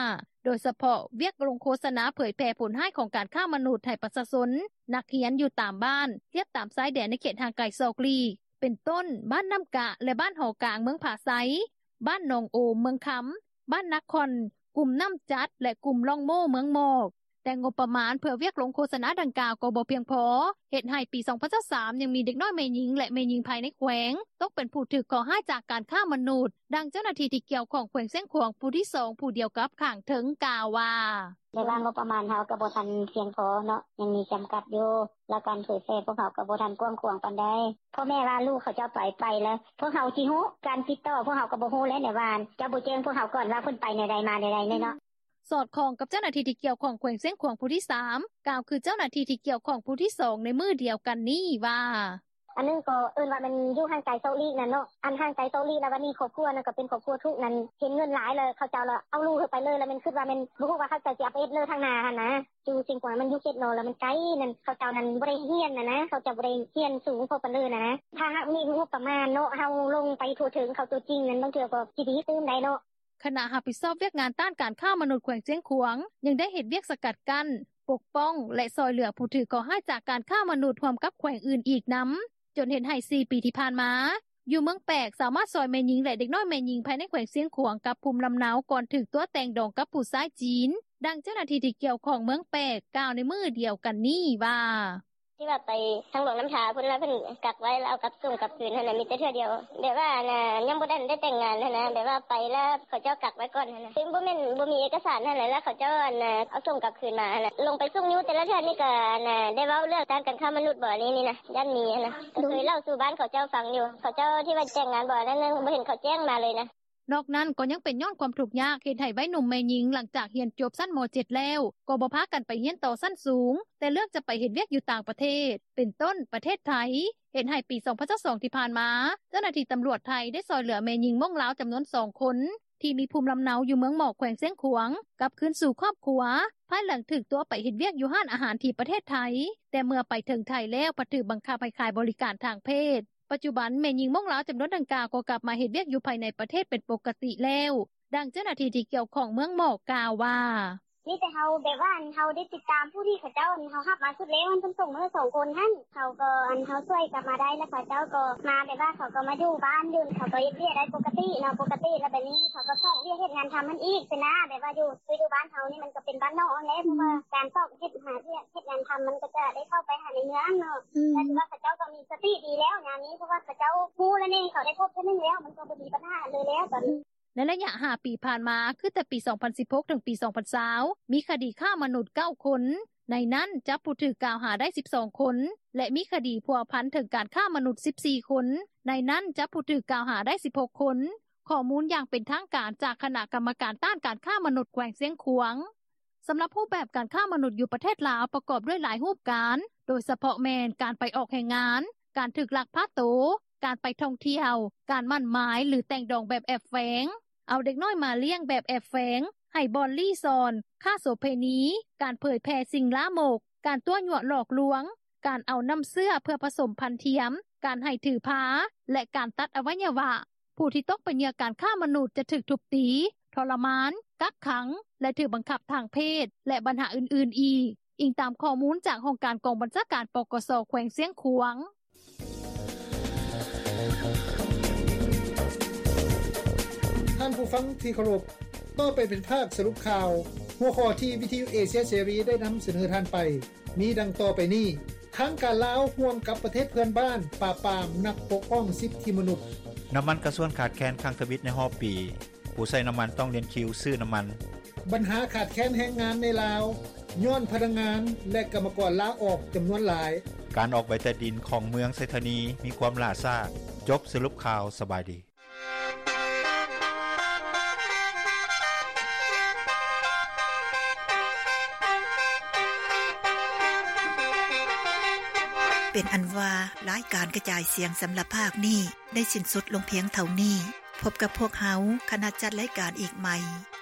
ໂດຍສະເພາະວຽກລົງໂຄສະນາເຜີຍແຜ່ຜົນຮ້າຍຂອງການຄ້າມະນຸດໃຫ້ປະຊາຊົນ, ນັກຮຽນຢູ່ຕາມບ້ານ ທຽບຕາມຊາຍແດນໃນເຂດຫ່າງໄກສອກຫຼີກ ເປັນຕົ້ນ ບ້ານນ້ຳກະ ແລະ ບ້ານຫໍກາງ ເມືອງຜາໄຊ, ບ້ານໜອງໂອມ ເມືອງຄຳ, ບ້ານນາຄອນ, ກຸ່ມນ້ຳຈັດ ແລະ ກຸ່ມລ່ອງໂມ້ ເມືອງໝອກ. ແຕ່ງົບປະມານເພື່ອວຽກລົງໂຄສະນາດັ່ງກ່າວກໍບໍ່ພຽງພໍ ເຮັດໃຫ້ປີສອງພັນຊາວສາມ ຍັງມີເດັກນ້ອຍແມ່ຍິງ ແລະ ແມ່ຍິງພາຍໃນແຂວງ ຕົກເປັນຜູ້ຖືກເຄາະຮ້າຍຈາກການຄ້າມະນຸດ. ດັ່ງເຈົ້າໜ້າທີ່ທີ່ກ່ຽວຂ້ອງແຂວງຊຽງຂວາງ ຜູ້ທີສອງ ຜູ້ດຽວກັບຂ້າງເທິງກ່າວວ່າ ແຕ່ວ່າງົບປະມານເຮົາກໍບໍ່ທັນພຽງພໍເນາະ ຍັງມີຈຳກັດຢູ່ ແລ້ວການເຜີຍແຜ່ພວກເຮົາກໍບໍ່ທັນກວ້າງຂວາງປານໃດ. ພໍ່ແມ່ວ່າລູກເຂົາເຈົ້າໄປ ໄປແລ້ວ ພວກເຮົາຊິຮູ້ ການຕິດຕໍ່ພວກເຮົາກໍບໍ່ຮູ້ແລ້ວ ແນວວ່າເຈົ້າບໍ່ແຈ້ງພວກເຮົາກ່ອນວ່າເພິ່ນໄປແນວໃດມາແນວໃດເນາະ. ສອດຄ່ອງກັບເຈົ້າໜ້າທີ່ທີ່ກ່ຽວຂ້ອງແຂວງຊຽງຂວາງຜູ້ທີສາມ ກ່າວຄືເຈົ້າໜ້າທີ່ທີ່ກ່ຽວຂ້ອງຜູ້ທີສອງໃນມື້ດຽວກັນນີ້ວ່າ ອັນໜຶ່ງກໍເອີ້ນວ່າແມ່ນຢູ່ຫ່າງໄກສອກຫຼີກນັ້ນເນາະ ອັນຫ່າງໄກສອກຫຼີກ ແລ້ວບັດນີ້ຄອບຄົວນັ້ນກໍເປັນຄອບຄົວທຸກນັ້ນ ເຫັນເງິນຫຼາຍແລ້ວເຂົາເຈົ້າລະເອົາລູກເຂົາໄປເລີຍ ລະແມ່ນຄິດວ່າແມ່ນບໍ່ຮູ້ວ່າເຂົາເຈົ້າຊິເອົາໄປເຮັດເລີທາງໜ້າຫັ້ນນະ. ຢູ່ຊຽງຂວາງມັນຢູ່ເຂດນອກ ລະມັນໄກນັ້ນ ເຂົາເຈົ້ານັ້ນບໍ່ໄດ້ຮຽນຫັ້ນນະ ເຂົາເຈົ້າບໍ່ໄດ້ຮຽນສູງພໍປານເລີນຫັ້ນນະ. ຖ້າຫາກມີງົບປະມານເນາະ ເຮົາລົງໄປທົ່ວເຖິງເຂົາຕົວຈິງນັ້ນ ບາງເທື່ອກໍຊິດີຕື່ມໄດ້ເນາະ. ຄະນະຮັບຜິດຊອບວຽກງານຕ້ານການຄ້າມະນຸດແຂວງຊຽງຂວາງ ຍັງໄດ້ເຮັດວຽກສະກັດກັ້ນ, ປົກປ້ອງ ແລະ ຊ່ອຍເຫຼືອຜູ້ຖືກເຄາະຮ້າຍຈາກການຄ້າມະນຸດຮ່ວມກັບແຂວງອື່ນອີກນຳ ຈົນເຮັດໃຫ້ສີ່ປີທີ່ຜ່ານມາ ຢູ່ເມືອງແປກສາມາດຊ່ອຍແມ່ຍິງ ແລະ ເດັກນ້ອຍແມ່ຍິງພາຍໃນແຂວງຊຽງຂວາງກັບພູມລຳເນົາ ກ່ອນຖືກຕົວະແຕ່ງດອງກັບຜູ້ຊາຍຈີນ. ດັ່ງເຈົ້າໜ້າທີ່ທີ່ກ່ຽວຂ້ອງເມືອງແປກກ່າວໃນມື້ດຽວກັນນີ້ວ່າ ທີ່ວ່າໄປທາງຫຼວງນ້ຳທາພຸ້ນ ລະເພິ່ນກັກໄວ້ ລະເອົາກັບສົ່ງກັບຄືນຫັ້ນນະ ມີແຕ່ເທື່ອດຽວ ແບບວ່າອັນນ່າ ຍັງບໍ່ທັນໄດ້ແຕ່ງງານຫັ້ນນະ ແບບວ່າໄປລະເຂົາເຈົ້າກັກໄວ້ກ່ອນຫັ້ນນະ ເຊິ່ງບໍ່ແມ່ນບໍ່ມີເອກະສານຫັ້ນແຫຼະ ລະເຂົາເຈົ້າອັນນ່າ ເອົາສົ່ງກັບຄືນມາຫັ້ນນະ. ລົງໄປສົ່ງຢູ່ແຕ່ລະເທື່ອນີ້ກະອັນນ່າ ໄດ້ເວົ້າເລື່ອງຕ້ານການຄ້າມະນຸດບໍ່ ອັນນີ້ນີ້ນະ ຢ້ານມີຫັ້ນນະ ກະເຄີຍເລົ່າສູ່ບ້ານເຂົາເຈົ້າຟັງຢູ່ ເຂົາເຈົ້າທີ່ວ່າແຕ່ງງານບໍ່ ອັນນັ້ນນະ ບໍ່ເຫັນເຂົາແຈ້ງມາເລີຍນະ. ນອກນັ້ນກໍຍັງເປັນຍ້ອນຄວາມທຸກຍາກ ເຮັດໃຫ້ໄວໜຸ່ມແມ່ຍິງ ຫຼັງຈາກຮຽນຈົບຊັ້ນ ມ.ເຈັດ ແລ້ວ ກໍບໍ່ພາກັນໄປຮຽນຕໍ່ຊັ້ນສູງ ແຕ່ເລືອກຈະໄປເຮັດວຽກຢູ່ຕ່າງປະເທດ ເປັນຕົ້ນປະເທດໄທ ເຮັດໃຫ້ປີສອງພັນຊາວສອງ ທີ່ຜ່ານມາ ເຈົ້າໜ້າທີ່ຕຳຫຼວດໄທໄດ້ຊ່ອຍເຫຼືອແມ່ຍິງມົ້ງລາວຈຳນວນສອງຄົນ ທີ່ມີພູມລຳເນົາຢູ່ເມືອງໝອກ ແຂວງຊຽງຂວາງ ກັບຄືນສູ່ຄອບຄົວ ພາຍຫຼັງຖືກຕົວະໄປເຮັດວຽກຢູ່ຮ້ານອາຫານທີ່ປະເທດໄທ ແຕ່ເມື່ອໄປເຖິງໄທແລ້ວ ພັດຖືກບັງຄັບໃຫ້ຂາຍບໍລິການທາງເພດ. ປັດຈຸບັນແມ່ຍິງມົ້ງລາວຈຳນວນດັ່ງກ່າວກໍກັບມາເຮັດວຽກຢູ່ພາຍໃນປະເທດເປັນປົກກະຕິແລ້ວ. ດັ່ງເຈົ້າໜ້າທີ່ທີ່ກ່ຽວຂ້ອງເມືອງໝອກກ່າວວ່າ ມີແຕ່ເຮົາແບບວ່າອັນເຮົາໄດ້ຕິດຕາມຜູ້ທີ່ເຂົາເຈົ້າອັນເຮົາຮັບມາຊຸດແລກຫັ້ນ ເພິ່ນສົ່ງມາໃຫ້ສອງຄົນຫັ້ນ ເຮົາກໍອັນເຮົາຊ່ວຍກັບມາໄດ້ ແລ້ວເຂົາເຈົ້າກໍມາແບບວ່າເຂົາກໍມາຢູ່ບ້ານຢູ່ ເຂົາກໍເຮັດວຽກໄດ້ປົກກະຕິເນາະ ປົກກະຕິ ແລ້ວບາດນີ້ເຂົາກໍຊອກວຽກເຮັດງານທຳຫັ້ນອີກຊີ້ນະ ແບບວ່າຢູ່ ຢູ່ບ້ານເຮົານີ້ມັນກໍເປັນບ້ານນອກຫັ້ນແຫຼະ ເພາະວ່າການຊອກເຮັດຫາວຽກເຮັດງານທຳ ມັນກໍຈະໄດ້ເຂົ້າໄປຫາໃນເມືອງເນາະ ແຕ່ຖືວ່າເຂົາເຈົ້າກໍມີສະຕິດີແລ້ວຍາມນີ້ ເພາະວ່າເຂົາເຈົ້າຮູ້ແລ້ວນີ້ ເຂົາໄດ້ພົບເທື່ອໜຶ່ງແລ້ວ ມັນກໍບໍ່ມີບັນຫາເລີຍແລ້ວຕອນນີ້. ໃນໄລຍະຫ້າປີຜ່ານມາ ຄືແຕ່ປີສອງພັນສິບຫົກ ເຖິງປີສອງພັນຊາວ ມີຄະດີຄ້າມະນຸດເກົ້າຄົນ, ໃນນັ້ນຈັບຜູ້ຖືກກ່າວຫາໄດ້ສິບສອງຄົນ ແລະ ມີຄະດີພົວພັນເຖິງການຄ້າມະນຸດສິບສີ່ຄົນ, ໃນນັ້ນຈັບຜູ້ຖືກກ່າວຫາໄດ້ສິບຫົກຄົນ. ຂໍ້ມູນຢ່າງເປັນທາງການຈາກຄະນະກຳມະການຕ້ານການຄ້າມະນຸດແຂວງຊຽງຂວາງ. ສຳລັບຮູບແບບການຄ້າມະນຸດຢູ່ປະເທດລາວ ປະກອບດ້ວຍຫຼາຍຮູບການ ໂດຍສະເພາະແມ່ນ ການໄປອອກແຮງງານ, ການຖືກລັກພາໂຕ, ການໄປທ່ອງທ່ຽວ, ການໝັ້ນໝາຍ ຫຼື ແຕ່ງດອງແບບແອບແຝງ, ເອົາເດັກນ້ອຍມາລ້ຽງແບບແອບແຝງ, ໃຫ້ບ່ອນລີ້ຊ່ອນ, ຄ້າໂສເພນີ, ການເຜີຍແຜ່ສິ່ງລາມົກ, ການຕົວະຍົວະຫຼອກລວງ, ການເອົານ້ຳເຊື້ອເພື່ອປະສົມພັນທຽມ, ການໃຫ້ຖືພາ ແລະ ການຕັດອະໄວຍະວະ. ຜູ້ທີ່ຕົກເປັນເຫຍື່ອການຄ້າມະນຸດຈະຖືກທຸບຕີ, ທໍລະມານ, ກັກຂັງ ແລະ ຖືກບັງຄັບທາງເພດ ແລະ ບັນຫາອື່ນໆອີກ, ອີງຕາມຂໍ້ມູນຈາກຫ້ອງການກອງບັນຊາການ ປກສ ແຂວງຊຽງຂວາງ. ທ່ານຜູ້ຟັງທີ່ເຄົາລົບ, ຕໍ່ໄປເປັນພາກສະຫຼຸບຂ່າວ. ຫົວຂໍ້ທີ່ວິທະຍຸເອເຊຍເສລີໄດ້ນຳສະເໜີທ່ານໄປ ມີດັ່ງຕໍ່ໄປນີ້: ທາງການລາວຮ່ວມກັບປະເທດເພື່ອນບ້ານປາບປາມນັກປົກປ້ອງສິດທິມະນຸດ. ນ້ຳມັນກາຊວນຂາດແຄນຄັ້ງທຳອິດໃນຮອບປີ, ຜູ້ໃຊ້ນ້ຳມັນຕ້ອງລຽນຄິວຊື້ນ້ຳມັນ. ບັນຫາຂາດແຄນແຮງງານໃນລາວ ຍ້ອນພະນັກງານ ແລະ ກຳມະກອນລາອອກຈຳນວນຫຼາຍ. ການອອກໃບຕາດິນຂອງເມືອງໄຊທານີມີຄວາມຫຼ້າຊ້າ. ຈົບສະຫຼຸບຂ່າວ, ສະບາຍດີ. ເປັນອັນວ່າ ລາຍການກະຈາຍສຽງສຳລັບພາກນີ້ ໄດ້ສິ້ນສຸດລົງພຽງເທົ່ານີ້. ພົບກັບພວກເຮົາ ຄະນະຈັດລາຍການອີກໃໝ່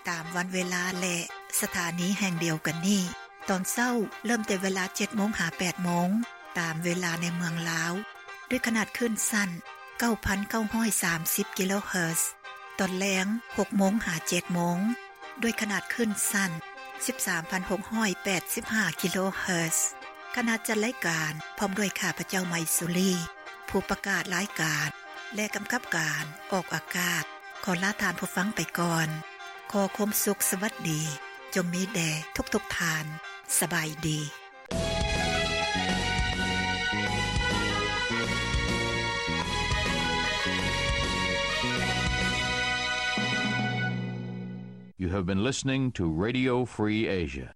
ຕາມວັນເວລາ ແລະ ສະຖານີແຫ່ງດຽວກັນນີ້. ຕອນເຊົ້າເລີ່ມແຕ່ເວລາເຈັດໂມງຫາແປດໂມງ ຕາມເວລາໃນເມືອງລາວ ດ້ວຍຂະໜາດຄື້ນສັ້ນເກົ້າພັນເກົ້າຮ້ອຍສາມສິບກິໂລເຮີດ. ຕອນແລງຫົກໂມງຫາເຈັດໂມງ ດ້ວຍຂະໜາດຄື້ນສັ້ນສິບສາມພັນຫົກຮ້ອຍແປດສິບຫ້າກິໂລເຮີດ. ຄະນະຈັດລາຍການ ພ້ອມດ້ວຍຂ້າພະເຈົ້າ ໄມສຸລີ ຜູ້ປະກາດລາຍການ ແລະ ກຳກັບການອອກອາກາດ ຂໍລາທ່ານຜູ້ຟັງໄປກ່ອນ. ຂໍຄວາມສຸກສະຫວັດດີ ຈົ່ງມີແດ່ທຸກໆທ່ານ. ສະບາຍດີ. You have been listening to Radio Free Asia.